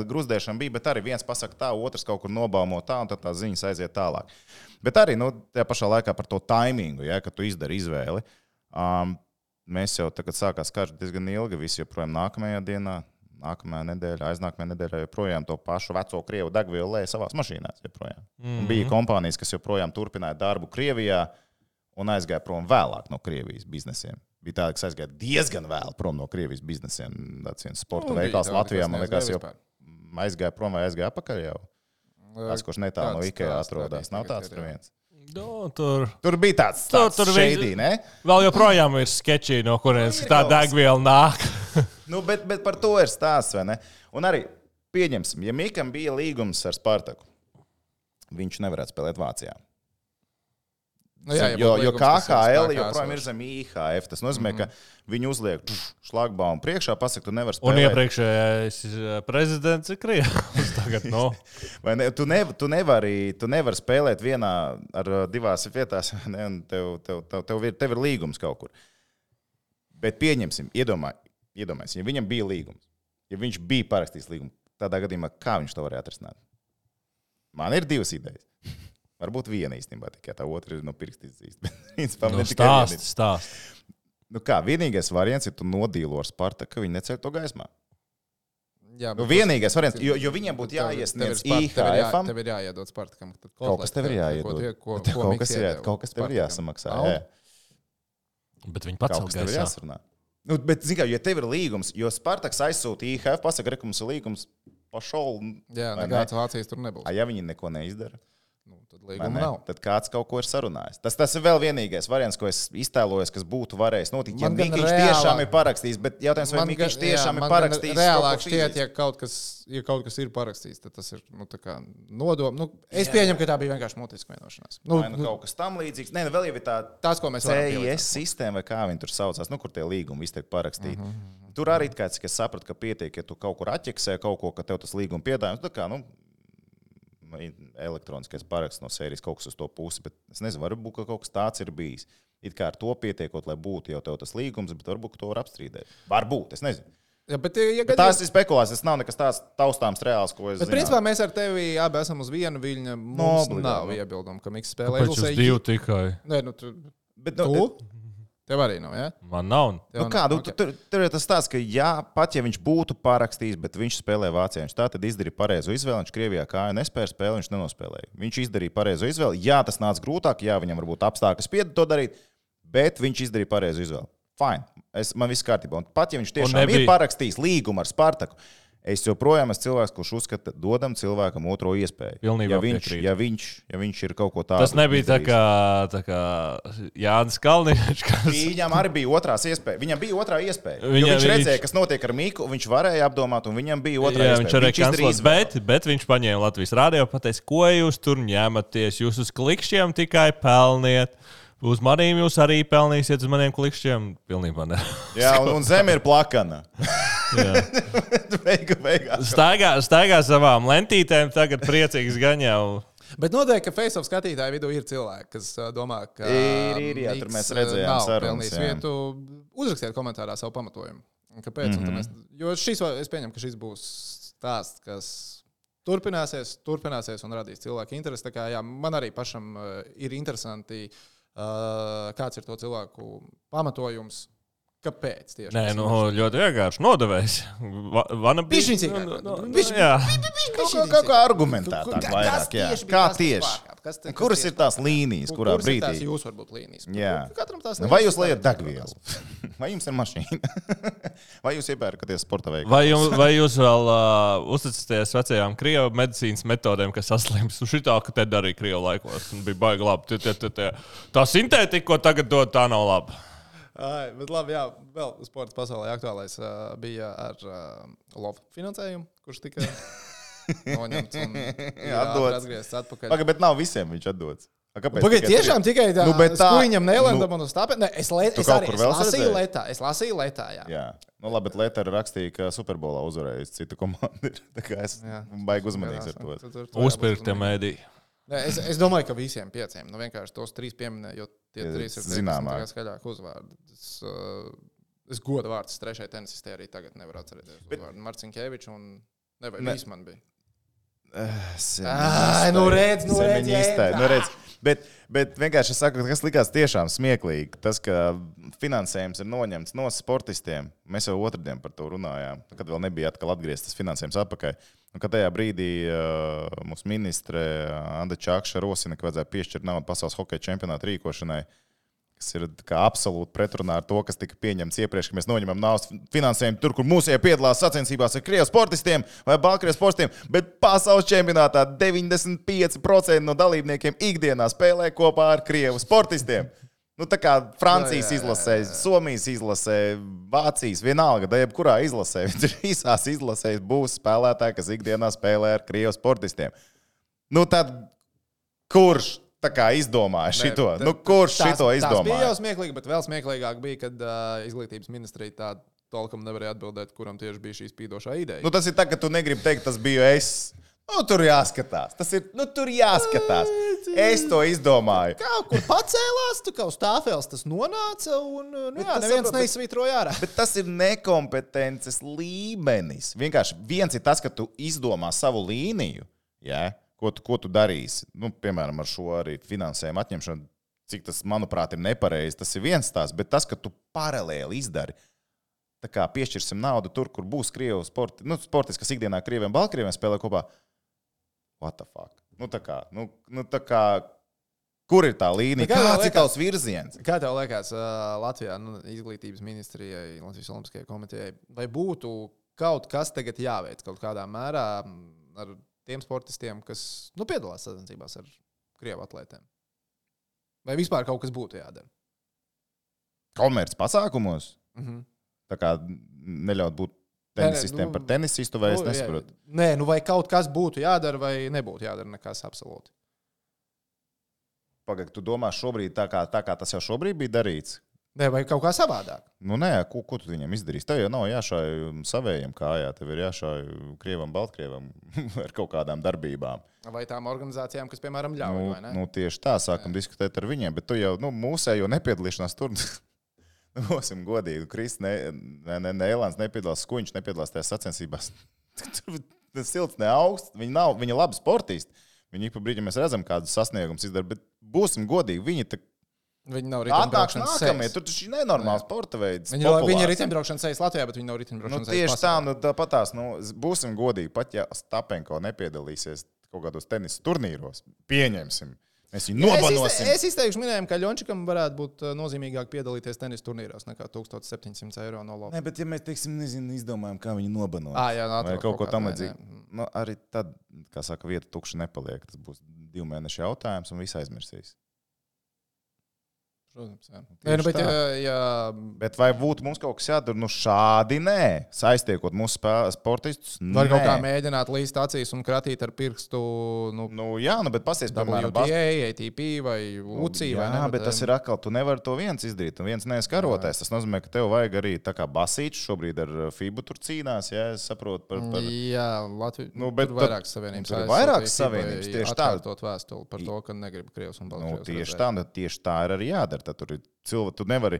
Speaker 2: gruzdēšana bija, bet arī viens pasaka tā, otrs kaut kur nobaumo tā, un tad tās ziņas aiziet tālāk. Bet arī, tajā pašā laikā par to taimingu, kad tu izdari izvēli. Mēs jau tagad sākās karš diezgan ilgi, visi joprojām nākamajā dienā, nākamajā nedēļā, aiznākamajā nedēļā joprojām to pašu veco Krievu degvielu lēja savās mašīnās joprojām. Bija kompānijas, kas joprojām turpināja darbu Krievijā un aizgāja prom vēlāk no Krievijas biznesiem. Bija tāda, kas aizgāja diezgan vēl prom no Krievijas biznesiem. Tāds viens sporta veikals Latvijā, man liekas, jau aizgāja prom vai aizgāja apakaļ jau. Kāds, kurš netālu no Ikea atrodas. Nav tāds tur viens. Tur bija tāds šeidī, ne?
Speaker 3: Vēl joprojām ir sketči, no kurienes tā degviela nāk.
Speaker 2: Bet par to ir stāsts, vai ne? Un arī pieņemsim, ja Mikam bija līgums ar Spartaku, viņš nevarētu spēlēt Vācijā. Jo KHL joprojām ir zem IHF. Tas nozīmē, ka viņi uzliek šlagbaumu priekšā, pasaka, tu nevari spēlēt.
Speaker 3: Un iepriekšējais prezidents ir Krievs. Tagad,
Speaker 2: Vai ne, tu nevari spēlēt vienā ar divās vietās, ne, un tev ir līgums kaut kur. Bet pieņemsim, iedomājies, ja viņam bija līgums, ja viņš bija parakstījis līgumu, tādā gadījumā, kā viņš to varēja atrisināt? Man ir divas idejas. Varbūt viena īstenībā, tikai tā otra ir pirksts izzīst.
Speaker 3: Stāst.
Speaker 2: Vienīgais variants ir tu nodīlo ar Spartaku, ka viņi neceļ to gaismā.
Speaker 1: Jā,
Speaker 2: vienīgais variants, jo viņiem būtu jāiesniedz IHF-am.
Speaker 1: Tev ir jāiedod Spartakam.
Speaker 2: Kaut kas tev ir jāiedod. Kaut kas tev ir jāsamaksā.
Speaker 3: Bet viņi pats
Speaker 2: tev ir jāsarunā. Bet, zin kā, ja tev ir līgums, jo Spartaks aizsūta IHF, pasaka, ka mums ir līgums pašol.
Speaker 1: Jā, nekāds Vācijas tur nebūs.
Speaker 2: Ja viņi neko neizdara.
Speaker 1: Tad līguma nav.
Speaker 2: Tad kāds kaut ko ir sarunājis. Tas ir vēl vienīgais variants, ko es iztēlojos, kas būtu varējis notikt. Ja Mikiņš tiešām ir parakstījis, bet jautājums, vai Mikiņš tiešām ir parakstījis.
Speaker 1: Reālāk šķiet, ja kaut kas ir parakstījis, tad tas ir nodoma. Es pieņemu, ka tā bija vienkārši mutiska vienošanās.
Speaker 2: Kaut kas tam līdzīgs. Nē, vēl jau ir tā
Speaker 1: tas, ko mēs
Speaker 2: CIS sistēma, vai kā viņi tur saucās, kur tie līgumi viss tiek parakstīti. Tur arī kāds, kas saprata, ka pietiek, ja tu kaut kur atķeksē kaut ko, ka tev tas līguma piedāvājums, elektroniskais paraksts no sērijas kaut kas uz to pusi, bet es nezinu, varbūt kaut kas tāds ir bijis. It kā ar to pietiekot, lai būtu jau tev tas līgums, bet varbūt to var apstrīdēt. Varbūt, es nezinu.
Speaker 1: Ja, bet
Speaker 2: tās ir spekulācijas, tas nav nekas tāds taustāms reāls, ko es zinu.
Speaker 1: Bet principā mēs ar tevi abi esam uz vienu viļņu. Mums nav iebildumu, ka Miks spēlē
Speaker 3: Izlasē. Kāpēc jūs divi tikai?
Speaker 1: Nē, tu? Tev arī nav, ja?
Speaker 3: Man nav.
Speaker 2: Tur ir tas tāds, ka pat ja viņš būtu parakstījis, bet viņš spēlē Vācijā, viņš tā tad izdarīja pareizo izvēli, viņš Krievijā kāju nespēja spēlēt, viņš nenospēlēja. Viņš izdarīja pareizo izvēli, tas nāca grūtāk, viņam varbūt apstākļi spieda to darīt, bet viņš izdarīja pareizo izvēli. Fine, man viss kārtībā. Un pat ja viņš tiešām ir parakstījis līgumu ar Spartaku, es joprojām esmu cilvēks, kurš uzskata, dodam cilvēkam otro iespēju. Ja viņš ir kaut ko tādu.
Speaker 3: Tas nebija tā kā Jānis Kalniņš.
Speaker 2: Viņam arī bija otrās iespēja. Viņam bija otrā iespēja. Viņš redzēja, kas notiek ar Miku, viņš varēja apdomāt, un viņam bija otrā iespēja.
Speaker 3: Viņš arī kancelēs, bet viņš paņēma Latvijas radio un pateica, ko jūs tur ņematies, jūs uz klikšķiem tikai pelniet. Uz maniem jūs arī pelnīsiet, uz maniem klikšķiem. Pilnībā ne.
Speaker 2: Jā, un zeme ir plakana.
Speaker 3: Staigā savām lentītēm, tagad priecīgs gan jau.
Speaker 1: Bet noteikti, ka Face-off skatītāju vidū ir cilvēki, kas domā, ka
Speaker 2: Jā, tur mēs redzējām sarunas.
Speaker 1: Vietu. Uzrakstiet komentārā savu pamatojumu. Kāpēc? Jo es pieņemu, ka šis būs stāsts, kas turpināsies un radīs cilvēku interesi. Tā kā, jā, man arī pašam ir interesanti, kāds ir to cilvēku pamatojums. Kāpēc tieši?
Speaker 3: Nē, ļoti vienkārši nodevējs.
Speaker 2: Kaut kā argumentētāk vairāk, jā. Kā tieši? Kuras ir tās līnijas, kurā brīdī?
Speaker 1: Kuras ir tās jūs varbūt līnijas?
Speaker 2: Jā. Vai jūs liejat degvielu? Vai jums ir mašīna? Vai jūs iepērkaties sporta veikalā?
Speaker 3: Vai jūs vēl uzticaties vecajām krievu medicīnas metodēm, kas saslims? Šitā, ka te darīja krievu laikos. Bija baigi labi. Tā sintētika, ko tagad dod, tā nav laba.
Speaker 1: Bet labi, jā, vēl sports pasaulē aktuālais bija ar LOV finansējumu, kurš tika noņemts un atgriezts atpakaļ.
Speaker 2: Pagaid, bet nav visiem viņš atdots.
Speaker 1: Pagaid, tiešām tikai tā, skuiņam nelendam un uz tāpēc. Es lasīju letā, jā.
Speaker 2: Nu labi, bet Lētā rakstīja, ka Superbolā uzvarējis citu komandu. Tā kā es baigi uzmanīgs ar to.
Speaker 3: Uzpirktie mēdī.
Speaker 1: Es domāju, ka visiem 5. Nu, vienkārši tos 3 pieminēju, jo tie 3 ir
Speaker 2: zināmāk.
Speaker 1: Skaļāk uzvārdi. Es godu vārds 3. tenisistē arī tagad nevaru atcerēties. Marcinkevičs un Vīsman bija.
Speaker 2: Redz. Bet vienkārši es saku, kas likās tiešām smieklīgi. Tas, ka finansējums ir noņemts no sportistiem. Mēs jau otrdien par to runājām, kad vēl nebija atkal atgrieztas finansējums atpakaļ. Un, kad tajā brīdī mūsu ministre Anda Čakša rosina, ka vajadzēja piešķirt naudu pasaules hokeja čempionāta rīkošanai, kas ir absolūti pretrunā ar to, kas tika pieņemts iepriekš, ka mēs noņemam naudas finansējumu tur, kur mūsēji piedalās sacensībās ar krievu sportistiem vai baltkrievu sportistiem, bet pasaules čempionātā 95% no dalībniekiem ikdienā spēlē kopā ar krievu sportistiem. Nu, tā kā Francijas izlasē, Somijas izlasē, Vācijas, vienalga, da jebkurā izlasē, visās izlasēs būs spēlētāji, kas ikdienā spēlē ar krievu sportistiem. Nu, tad kurš tā kā izdomāja šito? Kurš šito izdomāja?
Speaker 1: Tas bija jau smieklīgi, bet vēl smieklīgāk bija, kad izglītības ministrija tā tolkam nevarēja atbildēt, kuram tieši bija šī spīdošā ideja.
Speaker 2: Nu, tas ir tā, ka tu negribi teikt, tas biju es. Nu, tur jāskatās. Tur jāskatās. Es to izdomāju.
Speaker 1: Kaut kur pacēlās, tu kā uz tāfēles tas nonāca un neviens neizsvītroja ārā.
Speaker 2: Bet tas ir nekompetences līmenis. Vienkārši viens ir tas, ka tu izdomā savu līniju, ko tu darīsi. Nu, piemēram, ar šo arī finansējumu atņemšanu, cik tas, manuprāt, ir nepareizi. Tas ir viens tās, bet tas, ka tu paralēli izdari. Tā kā piešķirsim naudu tur, kur būs krievu sportisti, kas ikdienā krieviem, baltkrieviem spēlē kopā. What the fuck? Tā kā, kur ir tā līnija? Kāds ir tavs virziens?
Speaker 1: Kā tev liekas Latvijā, izglītības ministrijai, Latvijas Olimpiskajai komitejai, vai būtu kaut kas tagad jāveic kaut kādā mērā ar tiem sportistiem, kas piedalās sacensībās ar krievu atlētiem? Vai vispār kaut kas būtu jādara?
Speaker 2: Komerc pasākumos? Tā kā neļaut būt tenisistiem par tenisistu, vai es nesaprotu?
Speaker 1: Nē, vai kaut kas būtu jādara, vai nebūtu jādara nekas absolūti?
Speaker 2: Pagaid, tu domā šobrīd tā kā tas jau šobrīd bija darīts?
Speaker 1: Nē, vai kaut kā savādāk?
Speaker 2: Nu nē, ko tu viņam izdarīsi? Tev jau nav jāšāj savējiem kājā, tev ir jāšāj krievam, baltkrievam ar kaut kādām darbībām.
Speaker 1: Vai tām organizācijām, kas, piemēram, ļauj, vai ne?
Speaker 2: Nu, tieši tā, sākam diskutēt ar viņiem, bet tu jau, mūsējo nepiedalīšanās tur... Būsim godīgi, Nēlāns nepiedalās, Skuņš nepiedalās tajās sacensībās. Tas silts ne augsts, viņi labi sportisti. Viņi ik pa brīdim mēs redzam, kādus sasniegumus izdara, bet būsim godīgi,
Speaker 1: viņi nav riteņbraukšanas sejas.
Speaker 2: Tur taču ir nenormāls sporta veids.
Speaker 1: Viņi ir riteņbraukšanas sejas Latvijā, bet viņi nav riteņbraukšanas sejas pasaulē.
Speaker 2: Tieši tā, tāpatās, būsim godīgi, pat ja Stapenko nepiedalīsies kaut kādos tenisa turnīros, pieņemsim. Mēs viņu nobanosim.
Speaker 1: Es izteikšu minējumu, ka Ļončikam varētu būt nozīmīgāk piedalīties tenisa turnīros nekā 1700 eiro no lopa.
Speaker 2: Nē, bet ja mēs, izdomājam, kā viņu nobanot. Vai kaut ko tam līdzīgu. Arī tad, kā saka, vieta tukša nepaliek. Tas būs 2 mēnešu jautājums un viss aizmirsīs.
Speaker 1: Protams, jā. Nē, nu, bet, ja...
Speaker 2: Bet vai būtu mums kaut kas jādara? Nu, šādi nē. Saiztiekot mūsu sportistus.
Speaker 1: Var kaut kā mēģināt līst acīs un kratīt ar pirkstu.
Speaker 2: Jā, bet pasies, piemēram,
Speaker 1: WTA, ATP vai UCI.
Speaker 2: Jā, bet tas ir atkal, tu nevari to viens izdarīt. Un viens neskaroties. Tas nozīmē, ka tev vajag arī tā kā basīčs šobrīd ar FIBU tur cīnās. Jā, es saprotu par...
Speaker 1: Jā, Latvija. Tur vairākas savienības.
Speaker 2: Tur ir vairākas savienības. Tieši tā.
Speaker 1: Atkārtot vēstuli par to, ka negrib Krievs un Baltkrievs.
Speaker 2: Tieši tā ir arī jādara. Tad tur ir cilvēki, tu nevari.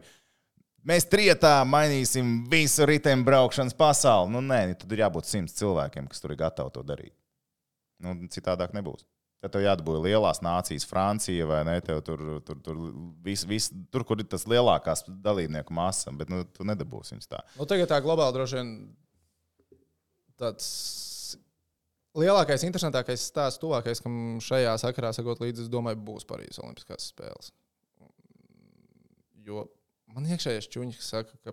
Speaker 2: Mēs trietā mainīsim visu riteņu braukšanas pasauli. Nu, nē, tad ir jābūt 100 cilvēkiem, kas tur ir gatavi to darīt. Nu, citādāk nebūs. Tad tev jādabūja lielās nācijas, Francija vai ne? Tev tur kur ir tas lielākās dalībnieku masa, bet nu, tu nedabūsi viņus tā.
Speaker 1: Nu, tagad tā globāli droši vien tāds lielākais, interesantākais stāsts, tuvākais, kam šajā sakarā sakot līdzi, es domāju, būs Parīzes Olimpiskās spēles. Jo man iekšējais čuņi, kas saka, ka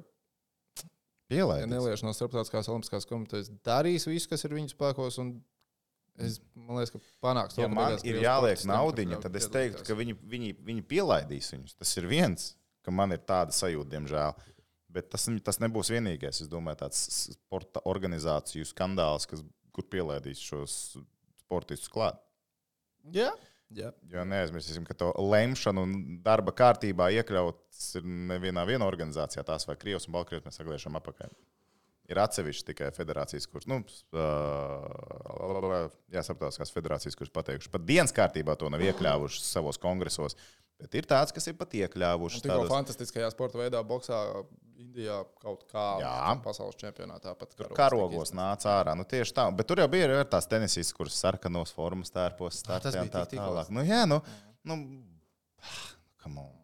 Speaker 1: ja nelieši no Starptautiskās Olimpiskās komitejas darīs visu, kas ir viņu spēkos, un man liekas, ka panāks to,
Speaker 2: ja man ir jāliek naudiņa, tad es teiktu, ka viņi pielaidīs viņus. Tas ir viens, ka man ir tāda sajūta, diemžēl. Bet tas nebūs vienīgais. Es domāju, tāds sporta organizāciju skandāls, kur pielaidīs šos sportistus klāt.
Speaker 1: Jā.
Speaker 2: Jo neaizmirsīsim, ka to lemšanu un darba kārtībā iekļauts ir nevienā organizācijā, tās vai Krievs un Baltkrievs mēs sagliešam apakaļ. Ir atsevišķi tikai federācijas, kuras, starptautiskās federācijas, kuras pateikuši, pat dienas kārtībā to nav iekļāvuši savos kongresos, bet ir tāds, kas ir pat iekļāvuši.
Speaker 1: Tikko fantastiskajā sporta veidā boksā Indijā kaut kā pasaules čempionātā pat
Speaker 2: karogos nāca ārā. Nu, tieši tā. Bet tur jau bija arī tās tenisistas, kuras sarkanos formas tērpos startē un tā tālāk. Come on.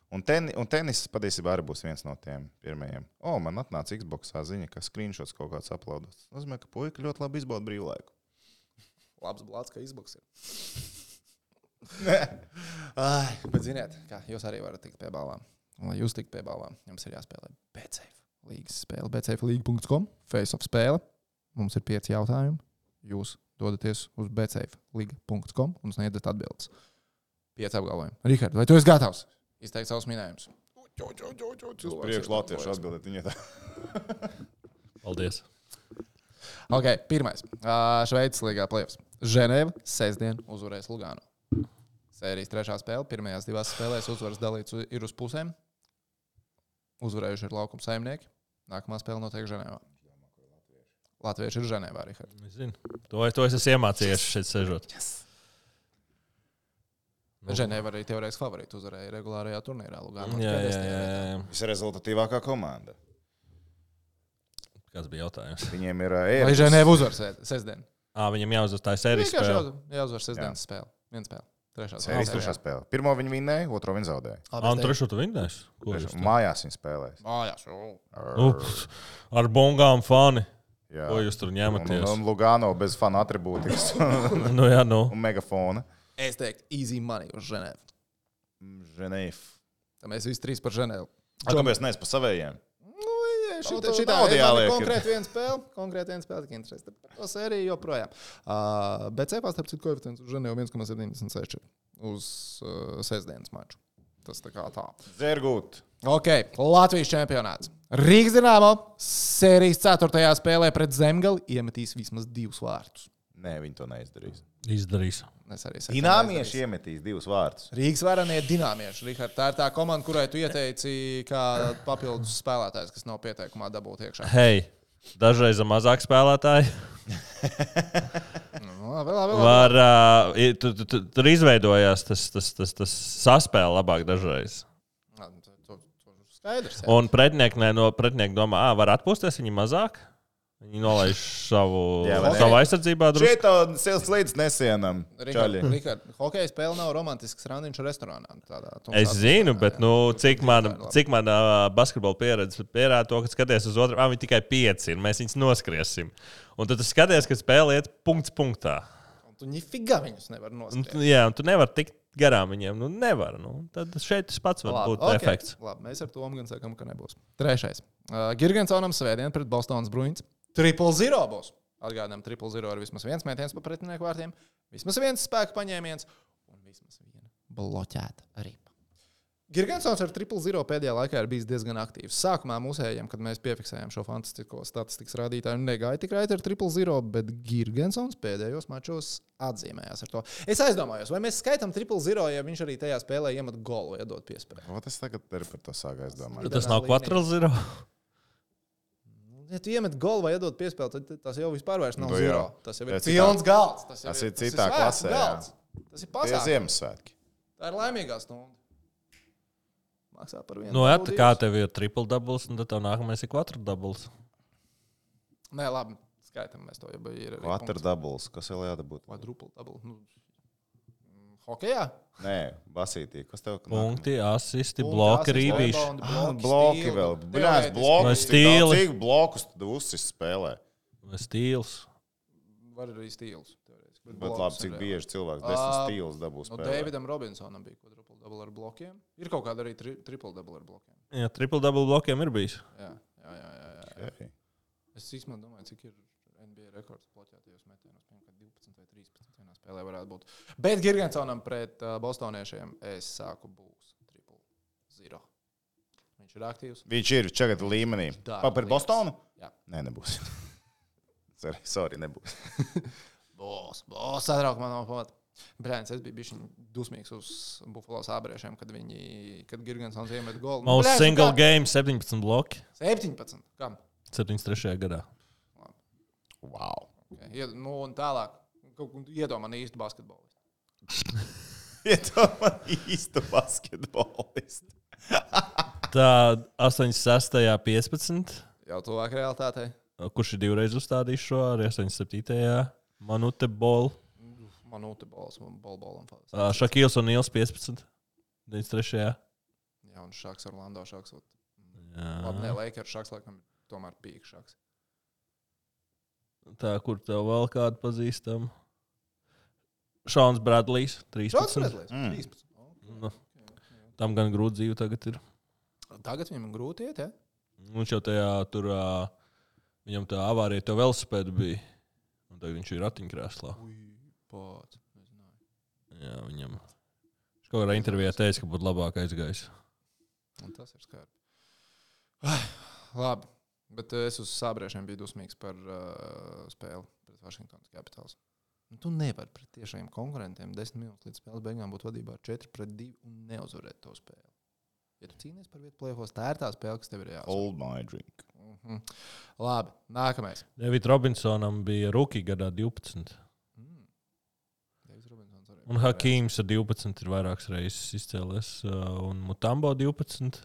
Speaker 2: Un tenis patiesībā arī būs viens no tiem pirmajiem. Man atnāca Xboxā ziņa, ka screenshots kaut kāds uploadots. Tas nozīmē, ka puika ļoti labi izbauda brīvlaiku.
Speaker 1: Labs blāds, ka Xbox ir. Bet ziniet, kā jūs arī varat tikt pie balvām. Un, lai jūs tikt pie balvām, jums ir jāspēlē BetSafe līgas spēle. BetSafe.com, face-off spēle. Mums ir 5 jautājumi. Jūs dodaties uz BetSafe.com un sniedzat atbildes. 5 apgalvojumi. Rihard, vai tu esi gatavs? Izteikt savus minējumus.
Speaker 2: Uz priekšu latviešu atbildēt viņai tā.
Speaker 3: Paldies.
Speaker 1: Ok, pirmais. Šveices līgā play-offs. Ženēva sestdien uzvarēs Lugano. Sērijas 3. spēle. Pirmajās 2 spēlēs uzvaras dalīts ir uz pusēm. Uzvarējuši ir laukuma saimnieki. Nākamā spēle notiek Ženēvā. Latvieši ir Ženēvā, Rihard.
Speaker 3: Es zinu. To es esmu iemācījies šeit sežot.
Speaker 1: Yes. Ženēva arī teorētiski favorīti uzvarēja regulārajā turnīrā. Lugano.
Speaker 3: Jā.
Speaker 2: Visrezultatīvākā komanda.
Speaker 3: Kāds bija jautājums?
Speaker 2: Viņiem ir
Speaker 1: Vai Ženēva uzvar sestdien?
Speaker 3: Viņam jāuzvar tā sērijas spēle.
Speaker 1: Jāuzvar sestdienas spēle. Viena spēle.
Speaker 2: Sērijas 3. spēle. Pirmo viņi vinnēja, otro viņi zaudēja.
Speaker 3: Un trešo tu vinnēs?
Speaker 2: Mājās viņi spēlēs.
Speaker 1: Mājās.
Speaker 3: Ar bongām fani.
Speaker 2: Jā.
Speaker 3: Ko jūs tur ņematies?
Speaker 2: Un Lugano bez fanu atribūtikas. Un megafona.
Speaker 1: Es teiktu, easy money uz Ženēvu.
Speaker 2: Ženēvu.
Speaker 1: Tā mēs visi 3 par Ženēvu.
Speaker 2: Kāpēc neesi pa savējiem?
Speaker 1: Šitā ir konkrēti viena spēle, tik interesē. Par to sēriju joprojām. Bet cepā starp citu koeficients uz Ženēvu 1,76 uz sestdienas maču. Tas tā kā tā.
Speaker 2: Zergūt.
Speaker 1: Ok, Latvijas čempionāts. Rīgas Dinamo sērijas 4. spēlē pret Zemgali iemetīs vismaz 2 vārtus.
Speaker 2: Nē, viņi to neizdarīs.
Speaker 3: Izdarīs.
Speaker 2: Dināmieši iemetīs 2 vārtus.
Speaker 1: Rīgas varanie dināmieši. Rihard, tā ir tā komanda, kurai tu ieteici kā papildus spēlētājs, kas nav pieteikumā dabūt iekšā.
Speaker 3: Hei, dažreiz mazāk spēlētāji.
Speaker 1: Labi.
Speaker 3: Tur izveidojās tas saspēle labāk dažreiz.
Speaker 1: Skaidrs. Jā.
Speaker 3: Un pretinieki domā, var atpūsties viņi mazāk. Viņi nolaiž savu aizsardzībā.
Speaker 2: Šeit silts līdz nesienam.
Speaker 1: Rihard, hokeja spēle nav romantisks randiņš restorānā.
Speaker 3: Es zinu, bet cik mana basketbola pieredze pierāda to, ka skaties uz otru, viņi tikai 5 ir, mēs viņus noskriesim. Un tad tu skaties, ka spēle iet punkts punktā.
Speaker 1: Un tu nifiga viņus nevar noskriest.
Speaker 3: Jā, un tu nevar tikt garām viņiem. Nevar. Tad šeit tas pats var būt efekts.
Speaker 1: Labi, mēs ar to gan sakam, ka nebūs. 3. Girgensonam svētdien pret Bostonas Bruins. 0-0 būs. Atgādinām, 0-0 ir vismaz viens mētiens pa pretinieku vārtiem, vismaz viens spēka paņēmiens un vismaz viena bloķēta ripa. Girgensons ar 0-0 pēdējā laikā ir bijis diezgan aktīvs. Sākumā mūsējiem, kad mēs piefiksējām šo fantastisko statistikas rādītāju, negāja tik raiti ar 0-0, bet Girgensons pēdējos mačos atzīmējās ar to. Es aizdomājos, vai mēs skaitām 0-0, ja viņš arī tajā spēlē iemet golu, iedod piespēju.
Speaker 2: O, tas tagad ir par to sāk aizdomāt.
Speaker 3: Tas nav 4-0.
Speaker 1: Ja tu iemet golu vai iedod piespēju, tad tas jau vispār vairs nav
Speaker 2: Nu,
Speaker 1: 0.
Speaker 2: jā.
Speaker 1: Tas jau ir
Speaker 2: Tas ir
Speaker 1: pilns galds.
Speaker 2: tas ir citā
Speaker 1: svētku
Speaker 2: klasē, jā.
Speaker 1: galds. Tas ir
Speaker 2: Tie
Speaker 1: pasākums.
Speaker 2: Ziemassvētki.
Speaker 1: Tā ir laimīgā stunda. Maksā par vienu.
Speaker 3: Nu, jā, tā kā tev ir triple doubles, un tad tev nākamais ir 4 doubles.
Speaker 1: Nē, labi, skaitam mēs to, ja ir arī
Speaker 2: Quater doubles. Kas vēl jādabūt?
Speaker 1: Quadruple double. Nu, hokejā?
Speaker 2: Nē, basītī. Kas tev?
Speaker 3: Punkti, asisti,
Speaker 1: Punkti,
Speaker 3: bloki,
Speaker 1: asisti,
Speaker 3: rībīši.
Speaker 1: rebound,
Speaker 2: Bloki vēl. Bļās,
Speaker 1: Teorētiski.
Speaker 2: bloki.
Speaker 3: Vai stīli?
Speaker 2: Cik blokus tu uzsis spēlē?
Speaker 3: Stīls.
Speaker 1: Var arī stīls. teorētiski,
Speaker 2: Bet
Speaker 1: blokus
Speaker 2: labi, cik
Speaker 1: ir
Speaker 2: bieži cilvēks 10 stīlus dabū
Speaker 1: No
Speaker 2: spēlē.
Speaker 1: Davidam Robinsonam bija quadruple double ar blokiem. Ir kaut kāda arī triple double ar blokiem.
Speaker 3: Jā, triple double blokiem ir bijis.
Speaker 1: Jā.
Speaker 2: Okay.
Speaker 1: Es īstenībā domāju, cik ir NBA rekords bloķētajos metienos. Piemēram, 12 vai 13 vienā spēlē varētu būt. Bet Girgensonam pret bostoniešiem es sāku būs 0-0. Viņš ir aktīvs.
Speaker 2: Viņš ir čagad līmenī.
Speaker 1: dara
Speaker 2: Par Bostonu?
Speaker 1: Jā.
Speaker 2: Nē, nebūs. Sorry, nebūs.
Speaker 1: Būs satrauk man no pamata. Brēns, es biju bišķiņ dusmīgs uz Buffalo sābriešiem, kad Girgensons iemet golu.
Speaker 3: Most single game 17 bloki.
Speaker 1: 17. Kam?
Speaker 3: 73. gadā.
Speaker 2: Wow.
Speaker 1: Okay. Nu, un tālāk. Iedomā man īstu basketbolistu.
Speaker 2: Iedomā īstu basketbolistu.
Speaker 3: Tā 86. 15.
Speaker 1: Jau tuvāk realitātei.
Speaker 3: Kurš ir divreiz uzstādījis šo arī 87. Manute Ball.
Speaker 1: Manūte bols, bolam.
Speaker 3: Šakils un Nils 15. 93.
Speaker 1: Jā, un Šaks Orlando Šaks.
Speaker 3: Jā.
Speaker 1: Labi, ne, Lakers Šaks, laikam, tomēr pīk Šaks.
Speaker 3: Tā, kur tev vēl kādu pazīstam? Šauns Bradlijs 13.
Speaker 1: Redlīs, 13.
Speaker 3: Nu, tam gan grūti dzīve tagad ir.
Speaker 1: Tagad viņam grūti iet, ja?
Speaker 3: Viņš jau tajā tur, viņam tā avārija to velosipēdu bija. Un tagad viņš ir ratiņkrēslā.
Speaker 1: Pats, nezināju.
Speaker 3: Jā, viņam. Viņš kaut kādā intervijā teica, ka būtu labāk aizgājis.
Speaker 1: Un tas ir skarbi. Labi, bet es uz sābriešiem biju dusmīgs par spēli pret Washingtonas Capitals. Tu nevari pret tiešiem konkurentiem 10 minūtes līdz spēles beigām būt vadībā ar 4-2 un neuzvarēt to spēli. Ja tu cīnies par vietu play-offos, tā ir tā spēle, kas tev ir jāuzvar.
Speaker 2: Hold my drink.
Speaker 1: Labi, nākamais.
Speaker 3: David Robinsonam bija rookie gadā 12. Un Hakīms ar 12 ir vairākas reizes izcēlies. Un Mutombo 12.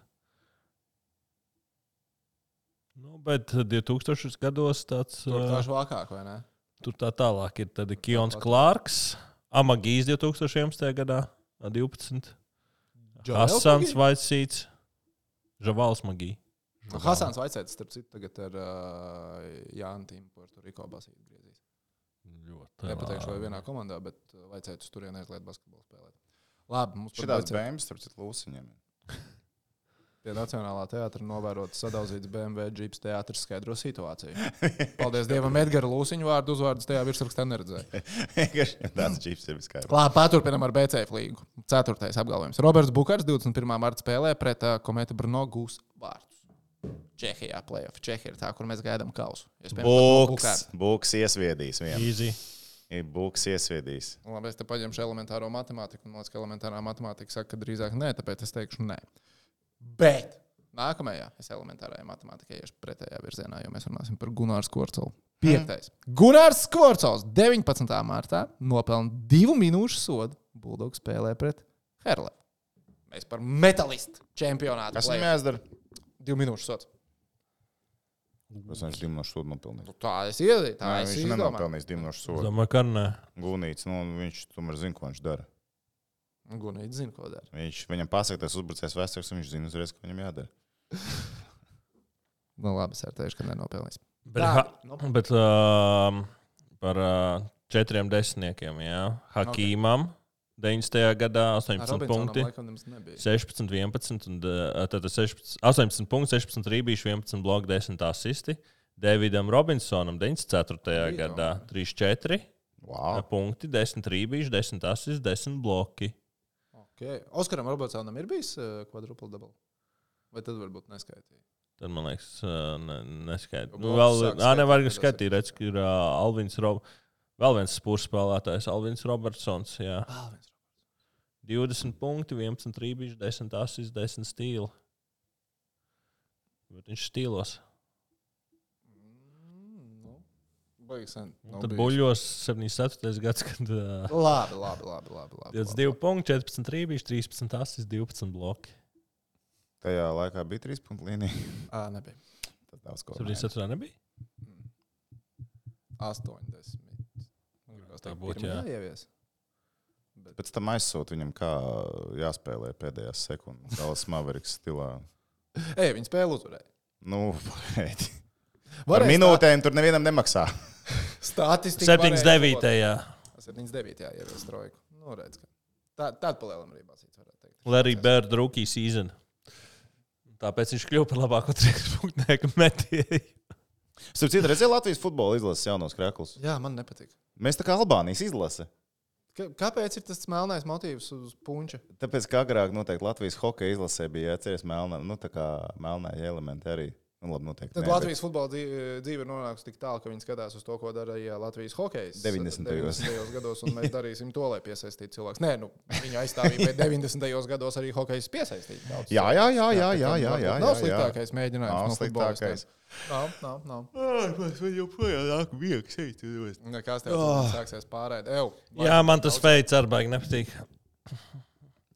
Speaker 3: Nu, bet 2000 gados tāds...
Speaker 1: Tur tā švakāk, vai ne?
Speaker 3: Tur tā tālāk ir tad Kions Klārks, Amagijs 2011. gadā 12. Hasans Vaicīts, Žavals Magī.
Speaker 1: Hasans Vaicīts, starp citu, tagad ar Jānu Tīmu Puerto-Riko basīt griezīs. Nepateikšu, vai vienā komandā, bet Vaicīts uz turieni aizliet basketbolu spēlēt. Labi, mums
Speaker 2: Šitās bēmas, starp citu, lūsiņiem.
Speaker 1: Pie Nacionālā teātra novērot sadauzīts BMW džips teātris skaidro situāciju. Paldies Dievam, Edgara Lūsiņu vārdu uzvārdus tajā virsrakstā neredzēja.
Speaker 2: Tāds džips ir viskaidrs.
Speaker 1: Labi, paturpinam ar BCF līgu. 4. apgalvojums. Roberts Bukars 21. marta spēlē pret Kometa Brno gūs vārdus. Čehijā play-off. Čehija ir tā, kur mēs gaidām kausu.
Speaker 2: Buks iesviedīs vienu.
Speaker 3: Easy.
Speaker 2: Buks iesviedīs.
Speaker 1: Labi, es te paņemšu elementāro matemātiku. Man liekas, ka elementārā matemātika saka, ka drīzāk nē, tāpēc es teikšu nē. Bet nākamajā es elementārajā matemātikā iešu pretējā virzienā, jo mēs runāsim par Gunārs Skvorcolu. 5. Gunārs Skvorcols 19. martā nopelna 2 minūšu sodu. Bulldogs spēlē pret Herlevu. Mēs par metalistu čempionātu.
Speaker 2: Kas viņam jāizdara?
Speaker 1: 2 minūšu sods.
Speaker 2: Tas viņš 2 minūšu sodu nopelnīs.
Speaker 1: Tā es iedīju, tā es
Speaker 2: Viņš
Speaker 1: izdomāju.
Speaker 2: nenopelnīs 2 minūšu sodu.
Speaker 3: Domāju, ka nē.
Speaker 2: Gūnīts, viņš tomēr zina, ko viņš dara.
Speaker 1: Gunīts zina, ko dara.
Speaker 2: Viņam pasaka, tas uzbrucējs vēstures, un viņš zina uzreiz, ko viņam jādara.
Speaker 1: Nu labi, es teikšu, ka nenopelnīs.
Speaker 3: Bet par 4 desmitniekiem, jā. Hakīmam 90. gadā 18 punkti. 16, 11, un tad 18 punkti, 16 rībīši, 11 bloki, 10 asisti. Davidam Robinsonam 94. gadā 3-4 punkti, 10 rībīši, 10 asisti, 10 bloki.
Speaker 1: Okay. Oskaram Robertsonam ir bijis quadruple double? Vai tad varbūt neskaitīja?
Speaker 3: Tad, man liekas, neskaidrs.
Speaker 1: Bloks sāk
Speaker 3: Nevar
Speaker 1: skaitīt,
Speaker 3: skaitīt, redz, ka ir Alvins Robertsons. Vēl viens spurs spēlētājs, Alvins Robertsons. Jā. 20 punkti, 11 rībiņš, 10 asis, 10 stīli. Bet viņš stīlos.
Speaker 1: Baigs sen.
Speaker 3: Tad buļļos 74. gads, kad...
Speaker 1: Labi.
Speaker 3: 22 punkti, 14 rībiņš, 13 asis, 12 bloki.
Speaker 2: Tajā laikā bija 3 punktu līnija.
Speaker 1: Nebija.
Speaker 2: Tad daudz ko.
Speaker 3: 74. nebija?
Speaker 1: 80.
Speaker 3: Tā būtu, jā.
Speaker 1: Ievies.
Speaker 2: Pēc tam aizsūt viņam, kā jāspēlē pēdējās sekundes. Dallas Mavericks stilā.
Speaker 1: Viņa spēle uzvarēja.
Speaker 2: Nu, pagaidi. Par minūtēm tur nevienam nemaksā.
Speaker 1: Statistika
Speaker 3: 79. Jā.
Speaker 1: 79. ievies trojku. Nu, redz, ka tāda palielam arī basīts, varētu teikt.
Speaker 3: Larry Bird rookie season. Tāpēc viņš kļuva par labāko 3 punktnieku metēju.
Speaker 2: Starp citu, redzēju Latvijas futbola izlases jaunos krēklus.
Speaker 1: Jā, man nepatīk.
Speaker 2: Mēs tā kā Albānijas izlase.
Speaker 1: Kāpēc ir tas melnais motīvs uz punča?
Speaker 2: Tāpēc, ka agrāk noteikti Latvijas hokeja izlasē bija jāceries melnā, tā kā melnā elementi arī. Nu, labi, noteikti.
Speaker 1: Tad Latvijas futbola dzīve ir nonākusi tik tālu, ka viņi skatās uz to, ko darīja Latvijas hokejs
Speaker 2: 90.
Speaker 1: gados, un mēs darīsim to, lai piesaistītu cilvēkus. Nē, viņa aizstāvīja, bet 90. gados arī hokejs piesaistīja.
Speaker 2: Jā.
Speaker 1: Nav sliktākais mēģinājums no futbolistiem. Nav.
Speaker 2: Mēs vēl joprojām nāk viegs šeit.
Speaker 1: Kas tev sāksies pārēd?
Speaker 3: Jā, man tas veids arī baigi nepatīk.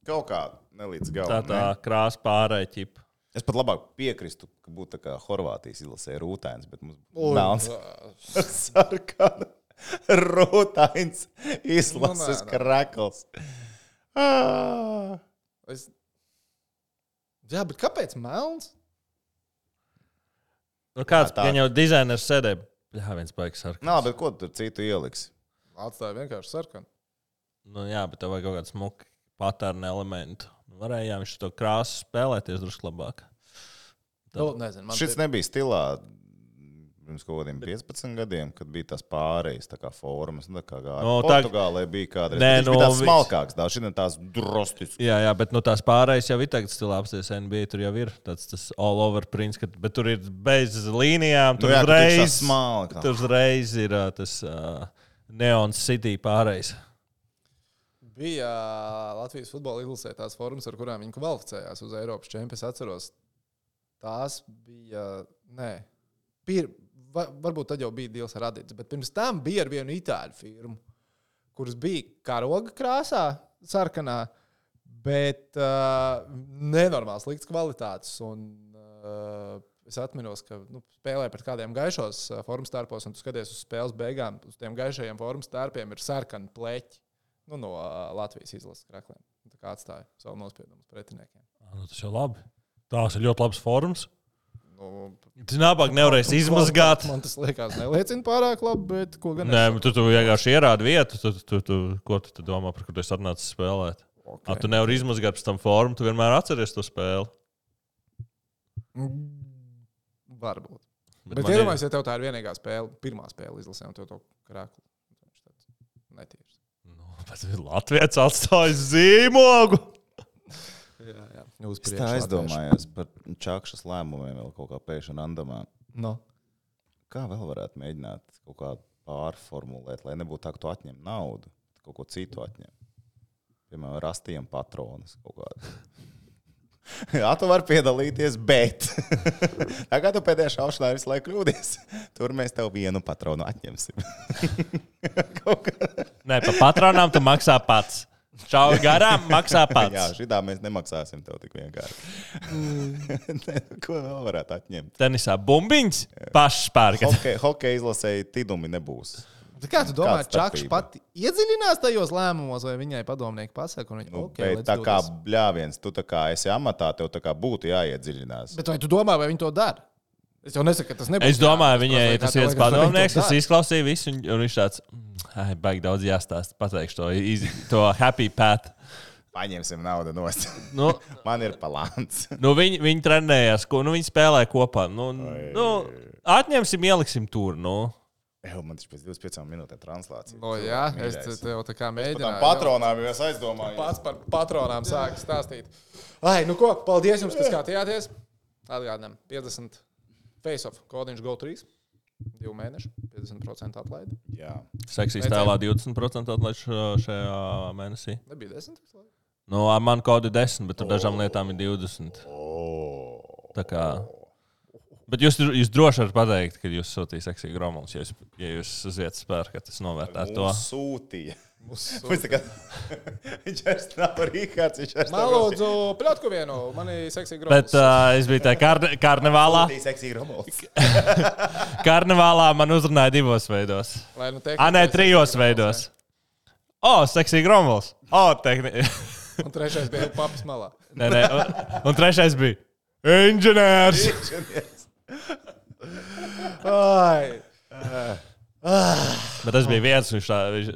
Speaker 2: Kaut kā nelīdz galam.
Speaker 3: Tā krāsa pārēja ķipa.
Speaker 2: Es pat labāk piekristu, ka būtu tā kā Horvātijas izlasē rūtains, bet mums melns sarkana rūtains izlases krekls.
Speaker 1: Jā, bet kāpēc melns?
Speaker 3: Nu, kāds gan jau dizainers sēdē? Jā, viens baigs sarkans.
Speaker 2: Nā, bet ko tu tur citu ieliksi?
Speaker 1: Atstāja vienkārši sarkanu.
Speaker 3: Nu, jā, bet tev vajag kaut kādu smuku patērnu elementu. Varēja, viņš to krāsu spēlēties drusku labāk.
Speaker 1: Nezinu,
Speaker 2: šis nebija stilā pirms kaut kādiem 15 gadiem, kad bija tās pārējas, tā kā formas, tā kā Portugālē bija kādreiz. Viņš bija tās smalkāks, šodien tās drostisks.
Speaker 3: Jā, bet tās pārējas jau ir tagad stilā apsties NBA, tur jau ir tas all over prints, bet tur ir bez līnijām, tur uzreiz ir tas Neon City pārējas.
Speaker 1: Bija Latvijas futbola izlasē tās formas, ar kurām viņi kvalificējās uz Eiropas čempionu. Es atceros, tās bija, varbūt tad jau bija dīls ar Adidas, bet pirms tam bija ar vienu itāļu firmu, kuras bija karoga krāsā, sarkanā, bet nenormāls slikts kvalitātes. Un es atminos, ka spēlēja pret kādiem gaišos formas tērpos, un tu skaties uz spēles beigām, uz tiem gaišajiem formas tērpiem ir sarkani pleķi. No Latvijas izlases krēkliem. Tā kā atstāja savu nospiedumu pretiniekiem.
Speaker 3: Tas jau labi. Tās ir ļoti labas formas. Tas nabāk nevarēs izmazgāt.
Speaker 1: Man tas liekas neliecina pārāk labi, bet ko gan
Speaker 3: Nē, tu vienkārši ierādi vietu. Ko tu domā, par kur tu esi atnācis spēlēt? Okay. Tu nevari izmazgāt pēc tam formu, tu vienmēr atceries to spēli.
Speaker 1: Varbūt. Bet iedomājies, ja tev tā ir vienīgā spēle, pirmā spēle izlasē, un tev to krēklu. Netīrs.
Speaker 3: Latvijas atstājas zīmogu.
Speaker 1: Jā.
Speaker 2: Es tā aizdomājos par Čakšas lēmumiem vēl kaut kā pēkšņi randamā.
Speaker 1: No.
Speaker 2: Kā vēl varētu mēģināt kaut kā pārformulēt, lai nebūtu tā, ka tu atņem naudu, kaut ko citu atņem. Piemēram, rastījam patronus kaut kādu. Jā, tu vari piedalīties, bet tā kā tu pēdējā šaušanā visu laiku kļūdies, tur mēs tev vienu patronu atņemsim.
Speaker 3: Nē, pa patronām tu maksā pats. Čau garām maksā pats.
Speaker 2: Jā, šitā mēs nemaksāsim tev tik vienkārši. Ko vēl varētu atņemt?
Speaker 3: Tenisā bumbiņas pašs pērkat.
Speaker 2: Hokeja izlasēji tidumi nebūs.
Speaker 1: Kā tu domā, Čakš pati iedziļinās tajos lēmumos, vai viņai padomnieki pasaka?
Speaker 2: Tā kā bļāviens, tu tā kā esi amatā, tev tā kā būtu jāiedziļinās.
Speaker 1: Bet vai tu domā, vai viņi to dara? Es jau nesaku, ka tas nebūs.
Speaker 3: Es domāju, viņai tas viens padomnieks, kas izklausīja visu, un viņš tāds, baigi daudz jāstāst, pateikšu to happy path.
Speaker 2: Paņemsim naudu nost. Man ir palāns.
Speaker 3: Viņi trenējās, viņi spēlēja kopā. Atņemsim, ieliksim tur,
Speaker 2: Man taču pēc 25 minūtēm translācija.
Speaker 1: Jā, es tev tā kā mēģināju.
Speaker 2: Par tām patronām jau es aizdomāju.
Speaker 1: Pats par patronām sāku stāstīt. Ai, nu ko, paldies jums, kas skatījāties. Atgādinām, 50 face-off, kodiņš GO3. 2 mēneši, 50% atlaidi.
Speaker 2: Jā.
Speaker 3: Seksīs tēlā 20% atlaid šajā mēnesī.
Speaker 1: Nebija 10?
Speaker 3: Nu, ar mani kodi 10, bet tur dažām lietām ir 20. Tā kā... Bet jūs droši varat pateikt, ka jūs sūtījāt seksīgu gromulus, ja jūs uziet spēru, ka tas novērtētu to.
Speaker 2: Sūtīja. Viņš vairs nav Rihards, viņš vairs nav.
Speaker 1: Man lūdzu, pļotku vienu, mani seksīgi gromulus.
Speaker 3: Bet es biju tā karnevālā.
Speaker 2: Sūtīja seksīgi gromulus.
Speaker 3: Karnevālā man uzrunāja 2 veidos. Nē, 3 veidos. Seksīgi gromulus.
Speaker 1: Un 3. bija papas malā.
Speaker 3: Nē, un 3. bija inženieris.
Speaker 1: Ai.
Speaker 3: Bet tas bija viens,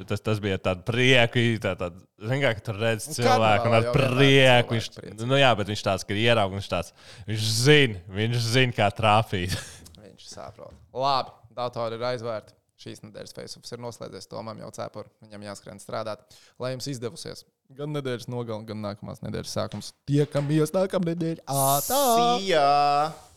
Speaker 3: tas bija tāds prieku, zin kā, ka tur redz cilvēku un ar prieku. Bet viņš tāds, ka ierauga, viņš zina, kā trāpīt.
Speaker 1: Viņš saprot. Labi, datori ir aizvērti. Šīs nedēļas face-offs ir noslēdzies. Tomam jau cepur, viņam jāskrien strādāt. Lai jums izdevusies gan nedēļas nogalē, gan nākamās nedēļas sākums. Tiekamies nākamnedēļ.
Speaker 2: See ya!